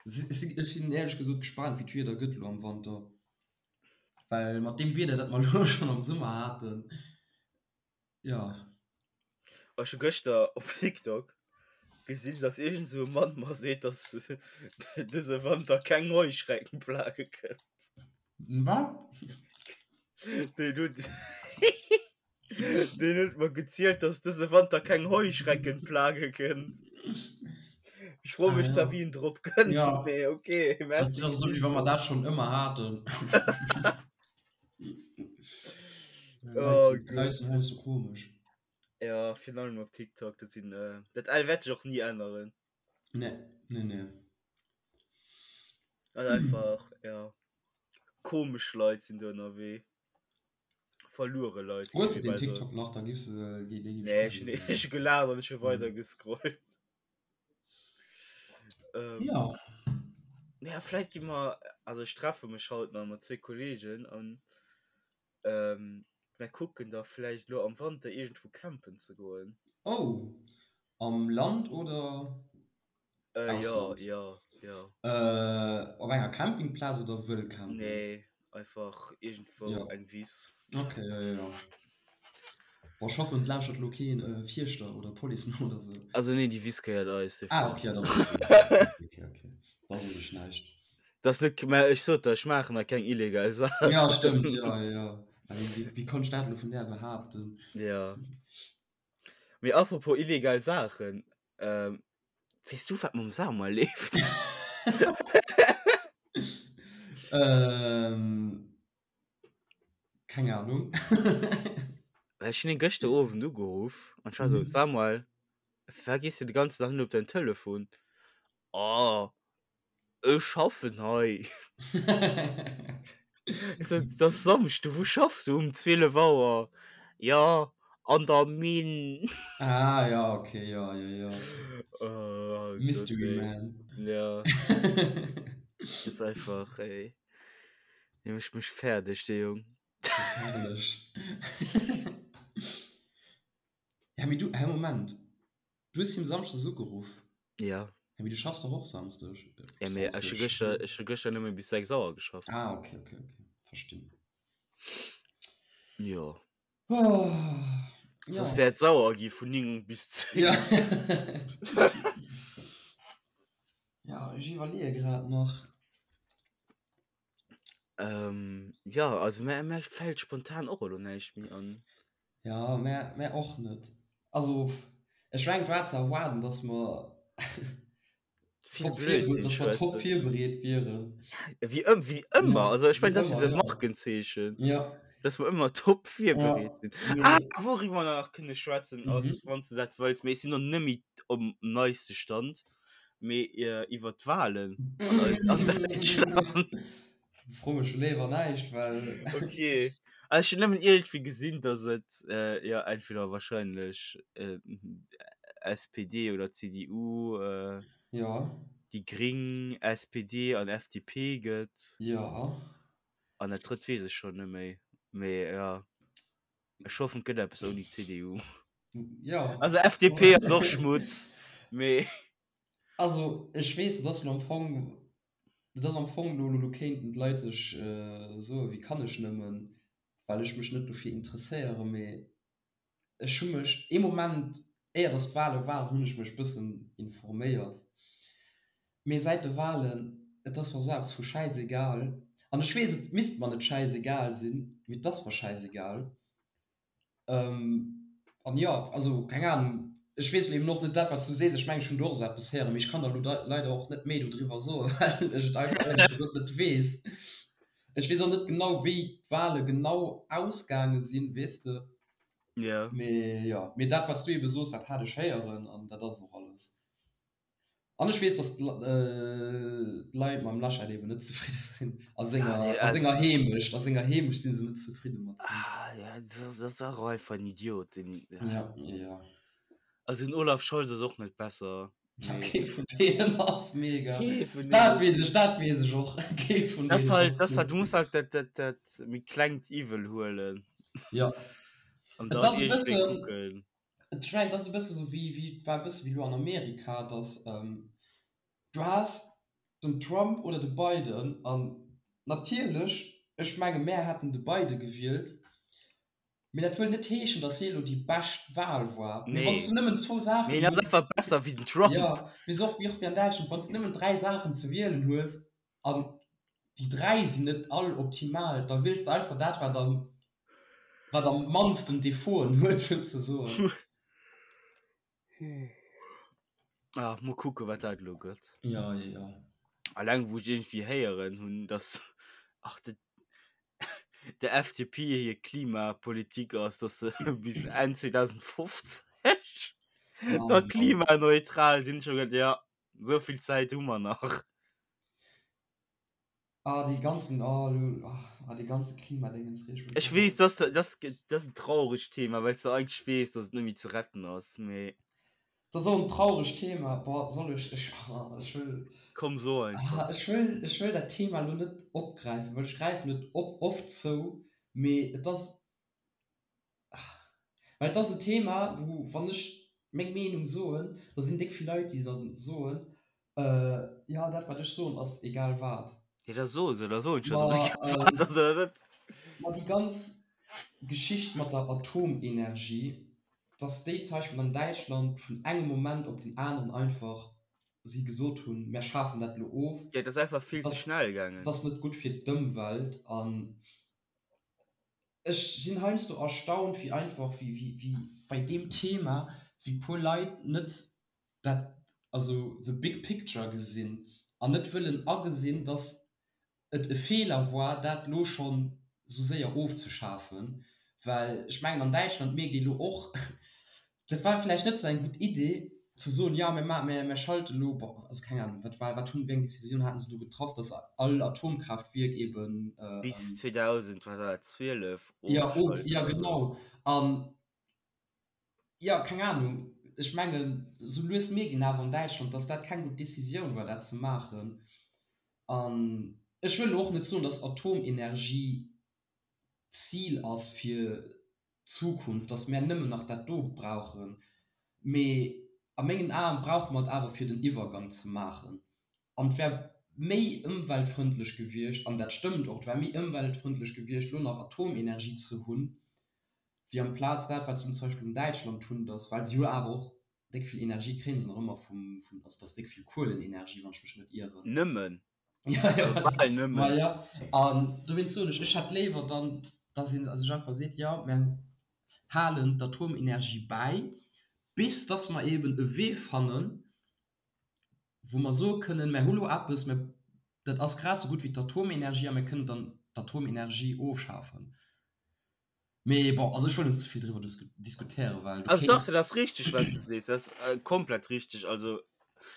Ech sinn, ech sinn éierlech gesot gespaant, wéi d'Wieder gëtt lo am Wanter. Well mat deem Wieder, dat mer lo schonn am Summer haten, Ja. Ech hu gëschter op TikTok gesinn, dass iergend esou e Mann mer seet, dass dëse Wanter keng Heuschreckenplage kënnt. Wat? Deen huet deen huet mer gezielt, dass dëse Wanter keng Heuschreckenplage kënnt. Ech froe Ah, mech zwar, ja. wéi en drop kënnt, Ja. mee okay, Das merci ist doch fir so, wéi wa d'Info. mer dat schonn ëmmer haten. Oh Leit Leit Gott. sinn heiansdo komesch. Ja, virun allem op TikTok, dat sinn, äh, dat wäert sech och ni änneren. Nee, nee, nee. Also einfach, ja, komesch Leit sinn do ënnerwee. Verluere Leit, Hues géif de ee den bal soen. TikTok nach, da giffs de, dee giff ech Nee, ech hunn kennen. ech hu gelaacht an ech hu weider gescrollt. Ähm, Ja. Ja, vläit gi mer, also ech treffe mech haut nach mat zwee Kollegen an ähm, mer kucken da vläicht elo am Wanter iergendwou campen ze goen. Oh, am Land oder Äh, ja, Ausland? ja, ja. Äh, op enger Campingplaz oder wëll campen? Nee, einfach iergendwou Ja. eng Wiss. Okay, ja, ja, ja. Boah, ech hoffen, et lauschtert elo keen äh, Fierschter oder Police no oder sou. Also nee, déi Wiss gehéiert eis, Ah, dofir. okay, ja, dann ass gutt. Okay, okay, okay. Da soen ech näischt. Das net, mä ech sot der, ech maachen da keng illegal Ja, Saachen. stëmmt, ja, ja, ja. Wéi, wéi, wéi konnt ech dat elo vun där behaapten? Ja. Mee apropos illegal Saachen, ähm, weess du wat mam Samuel leeft? Ähm, keng Ahnung. Well ech hunn hien gëschter Owend ugeruff an ech war sou, Mhm. Samuel, firwat gees du de ganzen Dag nëmmen op däin Telefon? Oh, Ech schaffen hei. Ech sot, Et ass Samschde, wou schaffs du um 12 Auer? Jo, an der Minn. Ah ja, okay, ja, ja, ja. Oh Gott, Mystery ey. Man. Ja, ass einfach, ey. Dee mécht mech fäerdeg, dee Jong. Herrlech. Ja, mee du, hä, Moment. Du hues him Samschdes ugeruff? Ja. Ja, mee du schaffs doch och Samsdeg. Ja, mee ech hu gëschter, ech hu gëschter nëmme bis 6 Auer geschafft. Ah, okay, okay, okay. Verstinn. Jo. Oh, ja. Soss wär et sauer gi vun 9 bis 10. Ja. Ja, ech iwwerleeë grad nach. Ähm, ja, also mär, mär fält spontan och elo näischt méi an. Ja, mär, mär och net. Also, ech mengen, et war ze erwaarden, dass mer Vill top vir, Blödsinn dass mer top schwätzen. virbereet wieren. Wéi ëm, wéi ëmmer. Ja, Also ech wéi mengen, dat ass jo ëmmer, de ja. Markenzeechen, Ja. dass mer ëmmer top virbereet Ja, sinn. Ah, mee. wouriwwer mer nach kënne schwätzen ass, Mhm. wann s de dat wëlls, mee ech sinn nach net méi um neiste Stand. Mee iwwer d'Wahlen an eis an Däitschland. Fro mech léiwer näischt, well. Okay. Also ech hunn nëmmen iergendwéi gesinn, datt et äh, jo entweder wahrscheinlech äh, SPD oder CDU, äh, Ja. déi Gring, SPD an FDP gëtt. Ja. An dat drëtt weess ech schonn net méi. Mee jo. Ech hoffen et gëtt eppes ouni CDU. Ja. Also FDP ass och Schmutz, mee. Also ech weess, dat ass am Fong, dat ass am Fong lo, lo kéinten d'Leit sech soen, wéi kann ech nëmmen, well ech mech net dofir interesséieren, mee ech hu mech ee Moment, éier datt d'Wale waren, hunn ech mech bëssen informéiert, mee säit de Walen, et ass mer esou eppes vu schäisegal, an ech weess, et misst mer net schäisegal sinn, mee et ass mer schäisegal. Ähm, an jo, also keng Ahnung, ech weess eben och net dat, wat s du sees. Ech mengen, ech hunn do och esou eppes héieren, mee ech kann der elo leider och net méi dodriwwer soen, well ech et einfach éierlech gesot net weess. Ech weess och net genau, wéi d'Wale genau ausgaange sinn, weess de. Ja. Mee jo, mee dat, wat s du ebe soos, dat hat ech héieren an dat ass och alles. An ech weess, dass d'Leit mam Laschet eben net zefridde sinn. A senger, a senger Heemecht, a senger Heemecht si se net zefridde mat him. Ah, ja, das, das ist auch einfach ein Idiot. Den, ja. Ja, ja. Also den Olaf Scholz ass och net besser. Ja, kee vun deenen ass mega. Kee vun Dat deenen. weess ech, dat weess ech och. Kee vun Das deenen halt, ass das halt, gutt. du musst halt dat, dat, dat méi klengt Iwwel huelen. Ja. An Et dann ass e iergendwéi bëssen, kucken. Ech mengen, et ass e bësse sou wéi, wéi, et war e bësse wéi elo an Amerika, datt du has den Trump oder de Biden an natierlech, ech menge mär hätten de Biden gewielt, mee dat wëll net heeschen, datt hie elo déi bescht Wahl war. Mee wann s du Nee. nëmmen zwou Mee Saachen hien ass hues, einfach besser wéi den Trump. jo, mee sou och wéi och wéi an Däitschland, wann s du nëmmen 3 Saachen ze wielen hues an déi 3 sinn net all optimal, da wiels de einfach dat wat am wat am mannsten Defauten huet souzesoen. Ah, mol kucke wat dat elo gëtt. Ja, ja, ja. Alleng wou ech iergendwéi héieren hunn, dass ach de der FDP hir Klimapolitik ass, dass se bis Enn 2050 Oh da Mann. klimaneutral sinn. Ech hu geduet, ja, esou vill Zäit hu mer nach. Ah, déi ganzen, oh, lo, ah, déi ganze Klimadéngens reegt mech Ech och weess, op. dass, dass, dat ass en trauregt Thema, well s de eigentlech weess, dass et net méi ze retten ass, mee. Dat ass och en trauregt Thema. Boah, soll ech, ech, ech wëll. Komm, so einfach. Ech wëll, ech wëll dat Thema elo net opgräifen, well ech gräifen et op, oft zou, mee et ass, well et ass en Thema, wou, wann ech meng Meenung soen, da sinn déck vill Leit, déi da soen, jo, dat wat ech soen ass egal wat. Jo, da so se, da soen ech jo, datt et egal wat ass, oder net? Ma déi ganz Geschicht mat der Atomenergie, dass déi zum Beispill an Däitschland vun engem Moment op den aneren einfach si gesot hunn, mär schafen dat elo of. Jo, et ass einfach vill ze schnell gaangen. Dat ass net gutt fir d'Ëmwelt. An ech sinn heiansdo erstaunt, wéi einfach, wéi, wéi bei deem Thema, wéi puer Leit net dat, also the big picture gesinn an net wëllen agesinn, dass et e Feeler war, dat elo schonn esou séier ofzeschafen, well ech mengen, an Däitschland mierkt ee elo och, dat war vläicht net esou eng gutt Idee, ze soen, jo, mir ma mir schalte elo, bon, also keng Ahnung, wat war, wat hunn, wéi eng Décisioun haten se do getraff, datt all Atomkraaftwierk eeben. Bis 2000, wat war dat, 12 ofschalten oder esou. Jo, genau. An Jo, keng Ahnung. Ech mengen, sou lues mierkt een awer an Däitschland, dass dat keng gutt Decisioun war, dat ze maachen. An ech wëll elo och net soen, dass Atomenergie d'Zil ass fir d'Zukunft, dass mär nëmmen nach dat do brauchen. Mee a mengen Aen brauche mer et awer fir den Iwwergang ze maachen. An et wär méi ëmweltfrëndlech gewiescht, an dat stëmmt och, et wär méi ëmweltfrëndlech gewiescht, elo nach Atomenergie ze hunn, wéi amplaz dat wat se zum Beispill an Däitschland hunn, dass, well se jo awer och déck vill Energie kréien se nach ëmmer vum, vum, also dass déck vill Kuelenenergie, wann ech mech net ieren. Nëmmen. Ja, ja, bal nëmmen. Ma ja, an dowéinst soen ech, ech hätt léiwer dann, dass ee sech einfach seet, jo, mär halen d'Atomenergie bäi, bis dass mer eeben e Wee fannen, wou mer soe kënnen, mär hu lo eppes, mä dat ass grad esou gutt wéi d'Atomenergie a mir kënnen dann d'Atomenergie ofschafen. Mee bon, also ech wëll net ze vill driwwer diskutéieren, well du Also dach, dat ass richteg, wat s de sees, dat ass komplett richteg. Also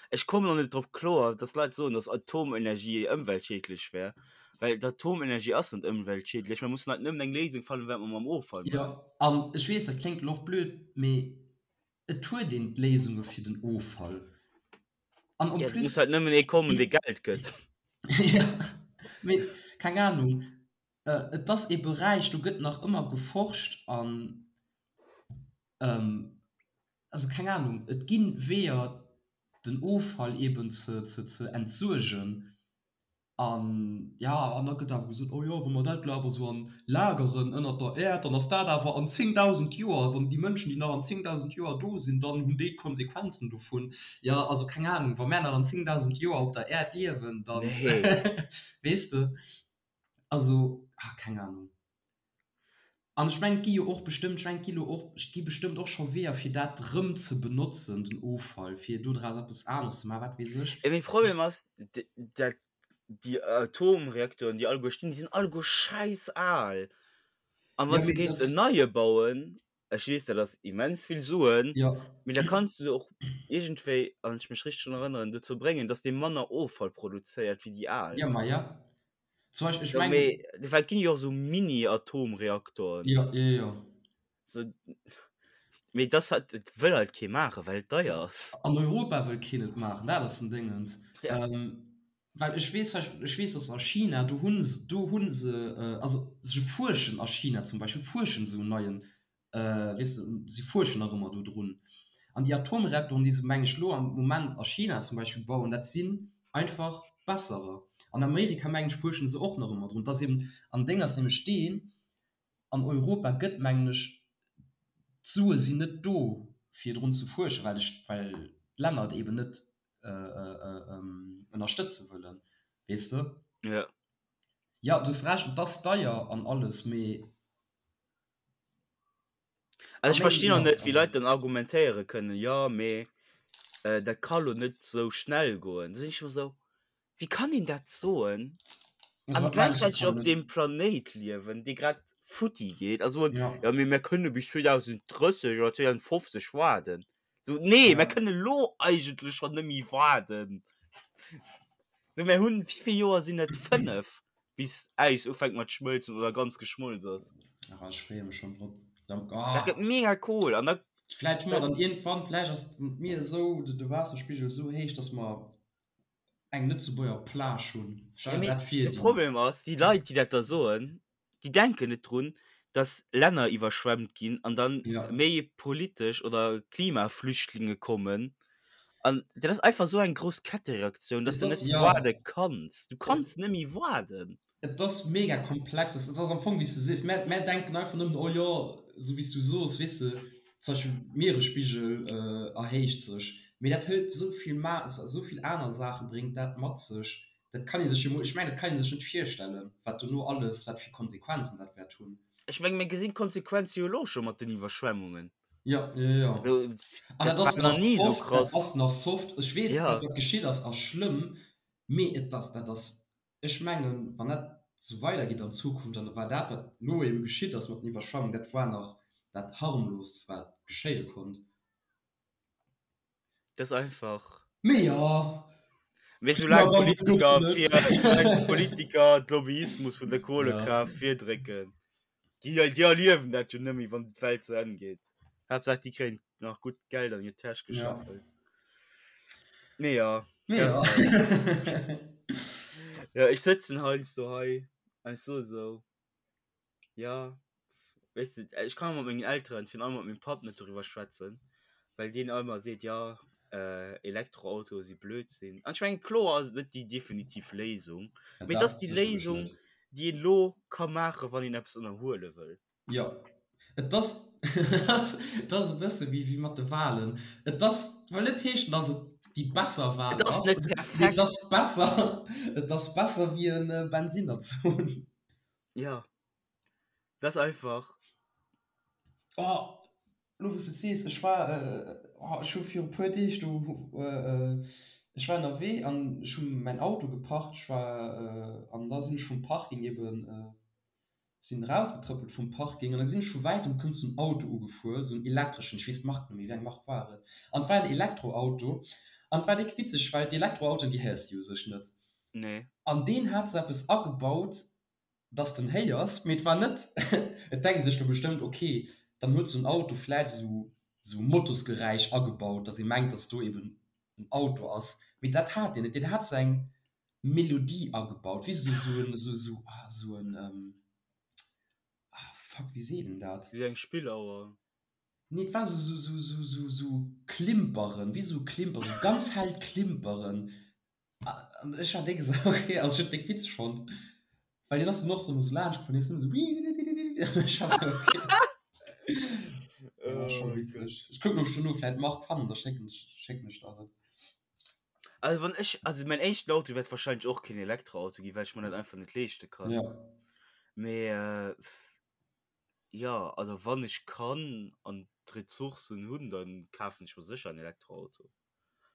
ech kommen och net drop kloer, dass Leit soen, dass Atomenergie ëmweltschiedlech wär, well d'Atomenergie ass net ëmweltschiedlech. Mer mussen halt nëmmen eng Léisung fannen, wat mer mam Offall maachen. Jo, an ech weess, dat kléngt elo och blöd, mee et huet een d'Léisunge fir den Offall. An en plus. Et muss halt nëmmen ee kommen, dee Geld gëtt. Jo, mee keng Anung. Et ass ee Beräich, do gëtt nach ëmmer geforscht an, also keng Anung, et gi Weeër, den Offall eeben ze ze entsuergen an, jo, an da gëtt awer gesot, oh jo, wa mer dat elo awer esou an lageren ënnert der Äerd, dann ass dat awer an 10.000 Joer, wann déi Mënschen, déi nach an 10.000 Joer do sinn, dann hunn déi d'Konsequenzen dovun. Jo, also keng Anung, wa mär nach an 10.000 Joer op der Äerd liewen, dann, weess de. Also, ah, keng Ahnung. An ech mengen, et gi jo och bestëmmt, ech mengen, et gi lo och, et gi bestëmmt och scho Weeër, fir dat rëm ze benotzen, den Offall, fir dodraus eppes aneres ze maachen, wat weess ech. Mee Problem ass, dat déi Atomreaktoren, déi alleguer stinn, déi sinn alleguer schäiss al. An wann s de géifs en neie bauen, ech weess, dat ass immens vill Suen, mee da kanns du se och iergendwéi, wann ech mech richteg drun erënneren, dozou bréngen, dass dee manner Offall produzéiert wéi déi al. Jo, ma jo. Zum Beispill, ech mengen. Mee well et ginn jo och esou Mini-Atomreaktoren. Jo, jo, jo. So, mee dass halt, et wëll halt kee maachen, well et deier ass. An Europa wëll keen et maachen, dat ass den Déngens. Ja. Well ech weess, ech weess, dass a China, do hu se, do hu se, also se fuerschen a China zum Beispill, fuerschen se un neien weess de, si fuerschen nach ëmmer do drun. An déi Atomreaktoren, déi se, meng ech, elo am Moment a China zum Beispill bauen, dat sinn einfach besserer. An Amerika, meng ech, fuerschen se och nach ëmmer drun. Et ass eben, an Déng ass nämlech deen, an Europa gëtt, mengen ech, d'Sue sinn net do, fir drun ze fuerschen, well de, well d'Länner et eben net ënnerstëtze wëllen, weess de. Jo. Jo, du hues Recht, et ass deier an alles, mee. Also ech verstinn och net, wéi Leit dann argumentéiere kënnen, jo mee dat ka lo net sou schnell goen. Da sinn ech ëmmer sou, wéi kann een dat soen an gläichzäiteg op deem Planéit liewen, dee grad futti geet a soen, jo mee mir kënne bis 2030 oder 2050 waarden. Sou, nee, mir kënne lo eigentlech schonn net méi waarden. Sou, mir hunn, wéi vill Joer sinn et? 5? bis Äis ufänkt mat schmëlzen oder ganz geschmolz ass. Ach, ech freeë mech schonn drop. Dat gëtt mega cool an da. Vläicht hu mer dann iergendwann, vläicht ass d'Mier esou, de Waasserspigel esou héich, dass mer eng Lëtzebuerger Plage hunn. Stell dir dat vir. De Problem ass, déi Leit, déi dat da soen, déi denken net drun, dass Länner iwwerschwemmt ginn an dann méi politesch oder Klimaflüchtlinge kommen. An dat ass einfach esou eng grouss Kettereaktioun, dass de net waarde kanns. Du kanns net méi waarden. Et ass mega komplex. Et ass am Fong, wéi s de sees, mär, mär denken einfach nëmmen, oh jo, esou wéi s du soos, weess de, zum Beispill d'Mieresspigel erhéicht sech. Mee dat hëlt esou vill ma, esou vill aner Saache bréngt dat mat sech, dat kann ee sech jo mol, ech mengen, dat kann ee sech net virstellen, wat dono alles, wat fir Konsequenzen dat wäert hunn. Ech menge mir gesinn d'Konsequenze jo elo scho mat den Iwwerschwemmungen. Jo, jo, jo. An dat ass nach soft, dat ass nach soft. Ech weess, dat wat geschitt ass, ass schlëmm, mee et ass, dat ass Ech mengen, wann dat esou weidergeet an Zukunft, an da war dat, wat elo ebe geschitt ass mat den Iwwerschwemmungen, dat war nach dat harmloost, wat geschéie konnt. Dat ass einfach. Mee jo. Mee soulaang d'Politiker fir, soulaang d'Politiker d'Lobbyismus vun der Kohlekraaft virdrécken, déi, déi erliewen dat jo net méi, wann d'Welt zu Enn geet. Haaptsaach, déi kréien nach gutt Geld an hir Täsch gescheffelt. Nee, ja. Nee, ja. ja, ich sëtzen heiansdo hei an ich so so. Ja, weißt du, ich kann mat mengen Elteren, virun allem mat mengem Papp net doriwwer schwätzen, well deen ëmmer seet, ja, äh, Elektroautoe si Blödsinn. An ich mengen, kloer ass et net déi definitiv Léisung, Ja, mee et dat ass déi sécherlech Léisung, net. déi een elo ka maachen, wann een eppes ënnerhuele wëll. Jo, et ass, et ass e bësse wéi, wéi mat de Wahlen. Et ass, wëll net heeschen, datt et déi besser Wahl Et ass ass, net mee et perfekt. ass besser, et ass besser wéi e Bensinner ze hunn. Jo, dat ass einfach. Oh, elo wou s de et sees, ech war, oh, ech hu viru puer Deeg do, ech war ënnerwee an ech hu mäin Auto geparkt, ech war, an da sinn ech vum Parking eben, Sinn rausgetrëppelt vum Parking an da gesinn ech vu wäitem kënnt sou en Auto ugefuer, sou en elektreschen, ech weess d'Mark net méi, wéi eng Mark war et, an et war en Elektroauto an et war déck witzeg, well d'Elektroautoen déi héiers de jo u sech net. Nee. An deen hat sou eppes agebaut, dass de en héiers, mee et war net, et denkt ee sech lo bestëmmt, ok, dann huet sou en Auto vläit sou sou Motosgeräisch agebaut, dass ee mengt, dass do eben en Auto ass, mee dat hat deen net, deen hat sou eng Melodie agebaut, weess de, sou en, sou, sou, ah, sou en, ah, fuck, wéi seet een dat? Wéi eng Spillauer? Nee, et war sou, sou, sou, sou, sou, sou Klimperen, wéi sou Klimperen, sou ganz hellt Klimperen. An ech war déck esou, okay, also ech hunn et déck witzeg fonnt, well deen ass dann och sou esou laanscht gefuer, an hien ass ëmmer sou, ech war sou, okay. Ja, scho witzeg. Ech kucken, ob ech dono vläit d'Mark fannen, da schécken ech, schécken ech der et. Also wann ech, also mein éischten Auto wäert wahrscheinlech och keen Elektroauto ginn, well ech mer dat einfach net leeschte kann. Ja. Mee äh, ja, also wann ech kann an d'Ressourcen hunn, dann kafen ech mer sécher en Elektroauto.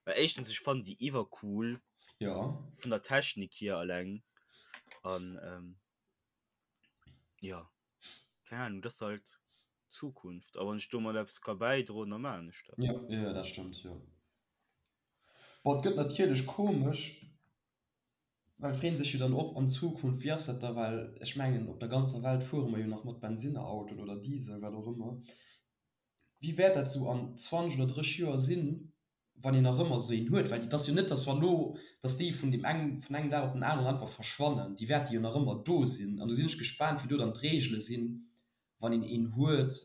Well éischtens, ech fannen déi iwwercool Ja. vun der Technik hier alleng an ähm, ja, keng Ahnung, dat ass halt d'Zukunft. A wann ech domat eppes ka bäidroen, da maachen ech dat. Ja, ja, dat stëmmt, jo. Bon, et gëtt natierlech komesch, well et freet sech jo dann och an Zukunft, wéi ass dat da, well ech mengen op der ganzer Welt fuere mer jo nach mat Bensinnerautoen oder Diesel, wat och ëmmer. Wéi wäert dat esou an 20 oder 30 Joer sinn, wann een nach ëmmer esou een huet? Well et ass jo net, datt wa lo, datt déi vun deem eng, vun engem Dag op den aneren einfach verschwannen. Déi wäerte jo nach ëmmer do sinn. An do sinn ech gespaant, wéi do dann d'Reegele sinn, wann een een huet,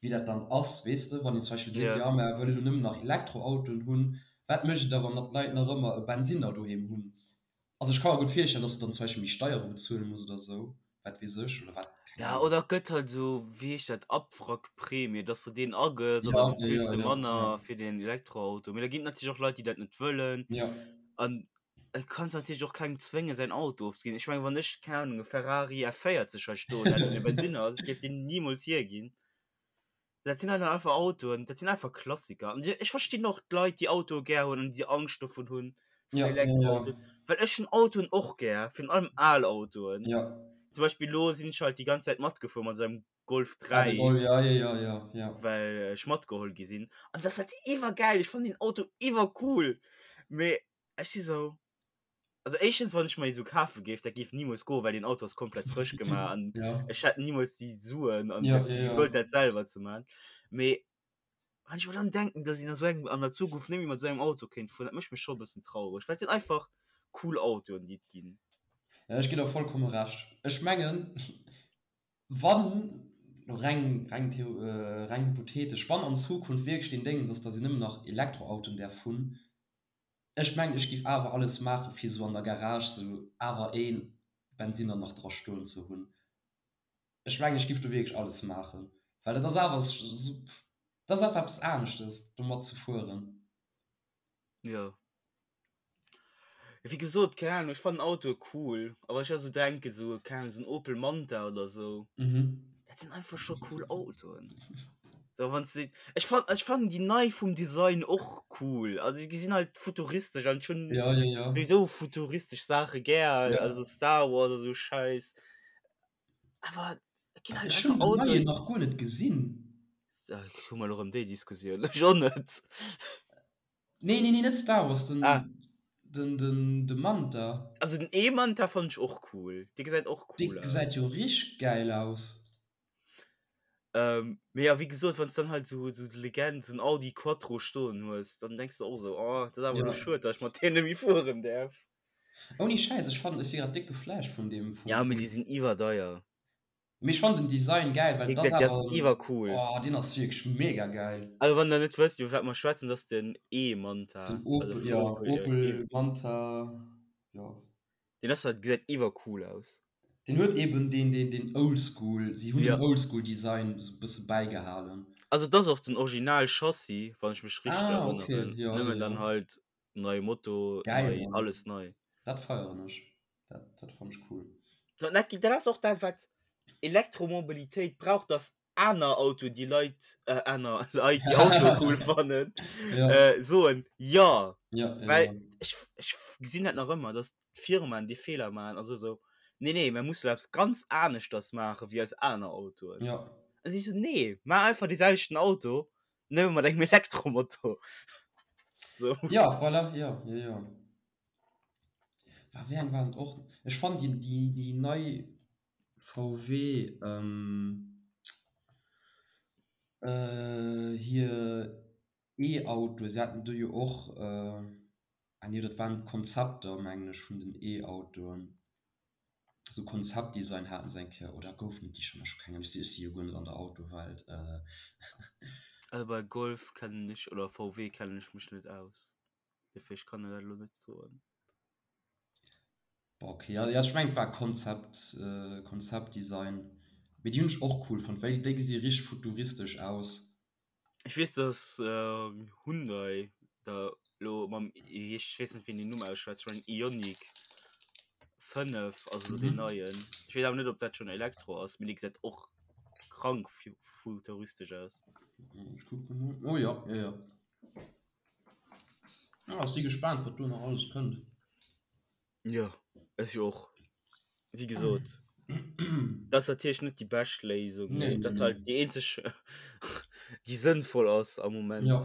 wéi dat dann ass, weess de, wann een zum Beispill seet, Ja. jo mer wëlle lo nëmmen nach Elektroautoen hunn, wat mécht et da wann d'Leit nach ëmmer e Bensinner doheem hunn? Also ech ka mer gutt virstellen, dass de dann zum Beispill méi Steiere bezuele muss oder esou, wat weess ech, oder wat, keng Ja, Ahnung. oder et gëtt halt esou, wéi heescht dat, Abwrackprämie, dass du deen agëss an Ja, da ja, bezuels ja, de ja, manner ja. fir den Elektroauto. Mee da ginn et natierlech och Leit, déi dat net wëllen. Ja. An et kanns natierlech och kengem zwéngen, säin Auto ofzeginn. Ech mengen, wann ech, keng Ahnung, e Ferrari F40 hei stoen hätt, deen e Bensinner ass, ech géif deen nimools hierginn. Dat sinn halt einfach Autoen, dat sinn einfach Klassiker. An ech verstinn och d'Leit, déi Autoe gär hunn an déi Angscht dovun hunn, vun Ja, ja, ja. Elektroautoen. Well ech hunn Autoen och gär, virun allem al Autoen. Ja. Zum Beispill elo sinn ech halt déi ganz Zäit matgefuer mat esou engem Golf Ah, de 3. Golf, ja, ja, ja, ja, ja. Well ech matgeholl gi sinn. An dat ass halt iwwergäil, ech fannen deen Auto iwwercool. Mee ech si sou. Also éischtens, wann ech mer ee sou kafe géif, dat géif nimools goen, well deen Auto ass komplett frësch gemaach an Ja. ech hätt nimools déi Suen an Ja, dat, ja, déi ja. Gedold dat selwer ze man. Mee wann ech mer dann denken, dass een a sou engem, an der Zukunft net méi mat sou engem Auto kéint fueren, dat mécht mech scho e bëssen traureg, well et sinn einfach cool Autoen, déi et ginn. Ja, ech ginn der vollkomme Recht. Ech mengen, wann, reng, reng theo, reng hypothetesch, wann an Zukunft wierklech deen Déngens ass, dass een nëmmen nach Elektroautoen däerf hunn, ech mengen, ech géif awer alles maachen, fir sou an der Garage sou awer ee Bensinner nach dra stoen ze hunn. Ech mengen, ech géif do wierklech alles maachen, well et ass awer sou, et ass einfach eppes aneschtes, domat ze fueren. Jo. Wéi gesot, keng Ahnung, ech fannen Autoe cool, a wann ech da sou denken, sou, keng Ahnung, sou en Opel Manta oder sou, dat sinn einfach scho cool Autoen. Sou wann s de, ech fan, ech fannen déi nei vum Design och cool, also déi gesinn halt futuristesch an ech hunn Ja, ja, ja. souwisou futuristesch Saache gär, Ja. also Star Wars a sou Schäiss, awer et ginn halt Ech hunn einfach den neien Autoen. nach guer net gesinn. Hu mer elo erëm déi Diskussioun? Ech och net. Nee, nee, nee, net Star Wars, den, Ah. den, den, de Manta. Also den E-Manta fand ech och cool. Dee gesäit och Dee cool aus. gesäit jo richteg gäil aus. Ähm, mee ja, wéi gesot, wann s dann halt sou, sou d'Legend, sou en Audi Quattro stoen hues, dann denks de och sou, oh, dat ass awer elo Ja. schued, datt ech mat deem net méi fueren däerf. Ouni Schäiss, ech fannen, ech si grad déck geflasht vun deem, vum, Ja, mee vum. déi sinn iwwerdeier. Mee ech fannen den Design gäil, well Wéi et ass gesat, dee ass awer en, iwwercool. oh, deen ass wierklech mega gäil. Also wann der net wësst iwwer wat mer schwätzen, dat ass den E-Manta, Den also Opel, vun ja, Opel, jo, E. Opel Manta, jo. Deen ass halt, gesäit iwwercool aus. Deen huet eben deen, deen, deen Oldschool, si hunn Ja. den Oldschool-Design esou e bësse bäigehalen. Also et ass och den Original Chassis, wann ech mech richteg Ah, okay, erënneren, jo, jo, nëmmen dann jo. halt neie Moto, Geil, nei, Mann. alles nei. Dat feieren ech. Dat, dat fannen ech cool. Dat, dat ass och dat, wat Elektromobilitéit brauch, dass aner Autoen, déi Leit, äh, aner Leit, déi Autoe cool fannen, Ja. äh, soen, ja. Ja, ja, Well ja. ech, ech gesinn dat nach ëmmer, dass d'Firmaen dee Feeler maachen a so sou, nee, nee, mir musse eppes ganz aneschters maache wéi eis aner Autoen. Ja. An si so, nee, maach einfach dee selwechten Auto, Nëmme mat engem Elektromotor. So. Ja, voilà, ja, ja, ja. War, wéi eng war et och? Ech fannen déi, déi, déi nei VW, ähm, äh, hir E-Autoe, se haten do jo och, äh, ah nee, dat waren d'Konzepter, mengen ech, vun den E-Autoen. Sou Konzeptdesign haten se eng Kéier, oder goufen et déi schonn? Ech hu keng Ahnung, ech si jo guer net an der Autowelt. Also bei Golf kennen ech oder VW kennen ech mech net aus, dofir ech kann der dat elo net soen. Boah okay, ja ech mengen et war Konzept, Konzeptdesign, mee déi hunn ech och cool fonnt, well déi gesi richteg futuristesch aus. Ech weess dass Hyundai da lo mam ech weess net wéi een den Numm ausschwätzt, ech mengen Ioniq 5 ass elo deen neien. Ech weess awer net ob dat schonn Elektro ass, mee dee gesäit och krank futuristesch aus. Ech kucke mol. Oh jo, jo jo. Ah, ech si gespaant wat do nach alles kënnt. Jo, ech och. Wéi gesot, dat ass natierlech net déi bescht Léisung, mee Nee, dat nee, ass halt nee. déi eenzeg, déi sënnvoll ass am Moment. Ja.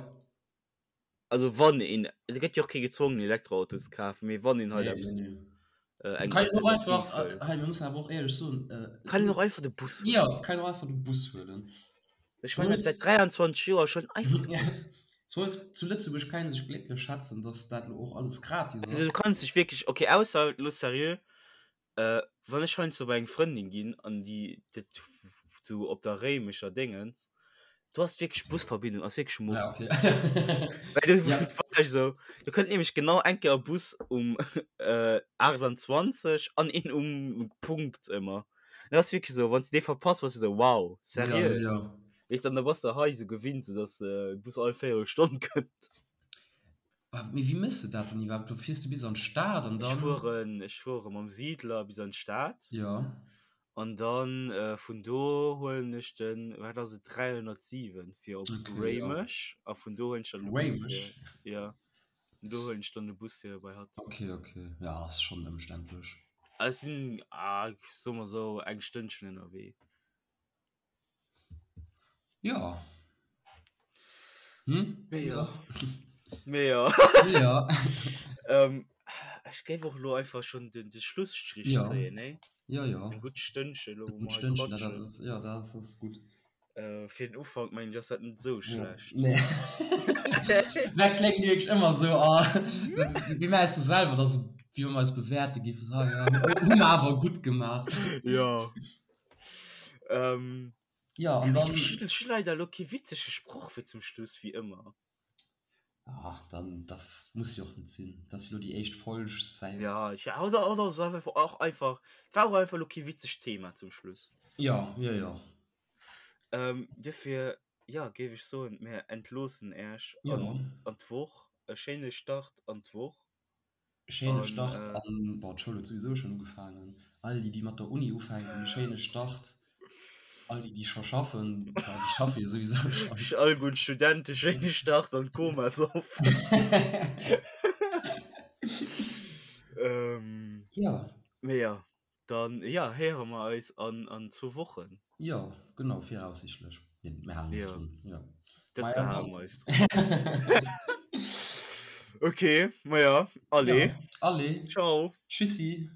Also wann een, et gëtt jo och kee gezwongen Elektroauto ze kafen, mee wann een halt Nee, nee, eppes, nee. äh, eng Kann een och Alternativ einfach, wëll. äh, hei, mir mussen awer och éierlech soen, äh, Kann een och einfach de Bus Ja, huelen. kann een och einfach de Bus huelen. Ech meine dat säit 23 Joer schonn einfach de Bus. Zu, zu Lëtzebuerg kann een sech glécklech schätzen, dass dat lo och alles gratis Also du ass. kanns dech wierklech, okay, ausser lo seriö, äh, wann ech heiansdo bei eng Frëndin ginn an déi dat sou op der Réimecher Déngens, do ass wierklech Busverbindung ass wierklech Ja, muff. okay. Well du Ja. war ech sou, do kënnt nämlech genau eng Kéier e Bus um äh, 28 an een um Punkt ëmmer. Dat ass wierklech sou, wann s de dee verpasst, bass du sou, wow, Ja, seriö? ja, ja. Weess dann, da bass de hei sou gewinnt, sou dass de Bus all Véierelstonn kënnt. Ah, mee wéi méchs de dat dann iwwerhaapt? Du fiers du bis an d'Stad an Ech dann. fueren, ech fuere mam Siedler bis an d'Stad. Ja. An dann vun do huelen ech den, wat ass et, 307 fir op Okay, ja. Réimech. A vun do huelen ech dann de Bus fir, Réimech? ja, vun do huelen ech dann de Bus fir bei hatt. Okay, okay. Ja, ass schonn ëmständlech. Ech sinn, ah, soe mer sou, eng Stënnchen ënnerwee. Ja. Hm? Mee ja. Mee ja. Mee ja. Ähm, Ech géif och elo einfach schonn den de Schlusstrich Ja. zéien, nee? Ja, ja. Eng gutt Stënnche elo, wou Gutt mer hei Stënnchen, dat quatschen. ass, ja, dat ass gutt. Äh, fir den Ufank mengen ech ass dat net esou Ja. schlecht. Nee. Dat kléngt wierklech ëmmer esou, ah, wéi mir eis so selwer da so, wéi wa mir eis bewäerte géifen, so, ah ja, hu mer awer gutt gemaach. Ja. Ähm, Ja, an dann. Ech hu leider elo kee witzege Sproch fir zum Schluss, wéi ëmmer. Ah, dann, das muss jo och net sinn. Dat ass jo lo déi éischt Folg säit. Ja, ich, oder, oder so einfach, och einfach, war och einfach lo kee witzegt Thema zum Schluss. Ja, ja, ja. Ähm, dofir, ja, géif ech soen, mir entloossen Äech Ja. an, an d'Woch. E schéine Start an d'Woch. Schéine An, Start äh, an, bon, d'Schoul huet souwisou schonn ugefaangen. All déi, déi mat der Uni ufänken, e schéine Start. All déi, déi scho schaffen, bon, déi schaffe jo souwisou schonn. All gutt Studente schéine Start an d'Komasoff. Ähm, Ja. mee ja, dann, ja, héiere mer eis an, an zwou Wochen. Jo, genau, viraussichtlech. Mir, mir halen eis Ja. drun, ja. Dës Maja, Kéier hale dann. mer eis drun. Okay, maja, allez. Ja, allez. Ciao. Tschüssi.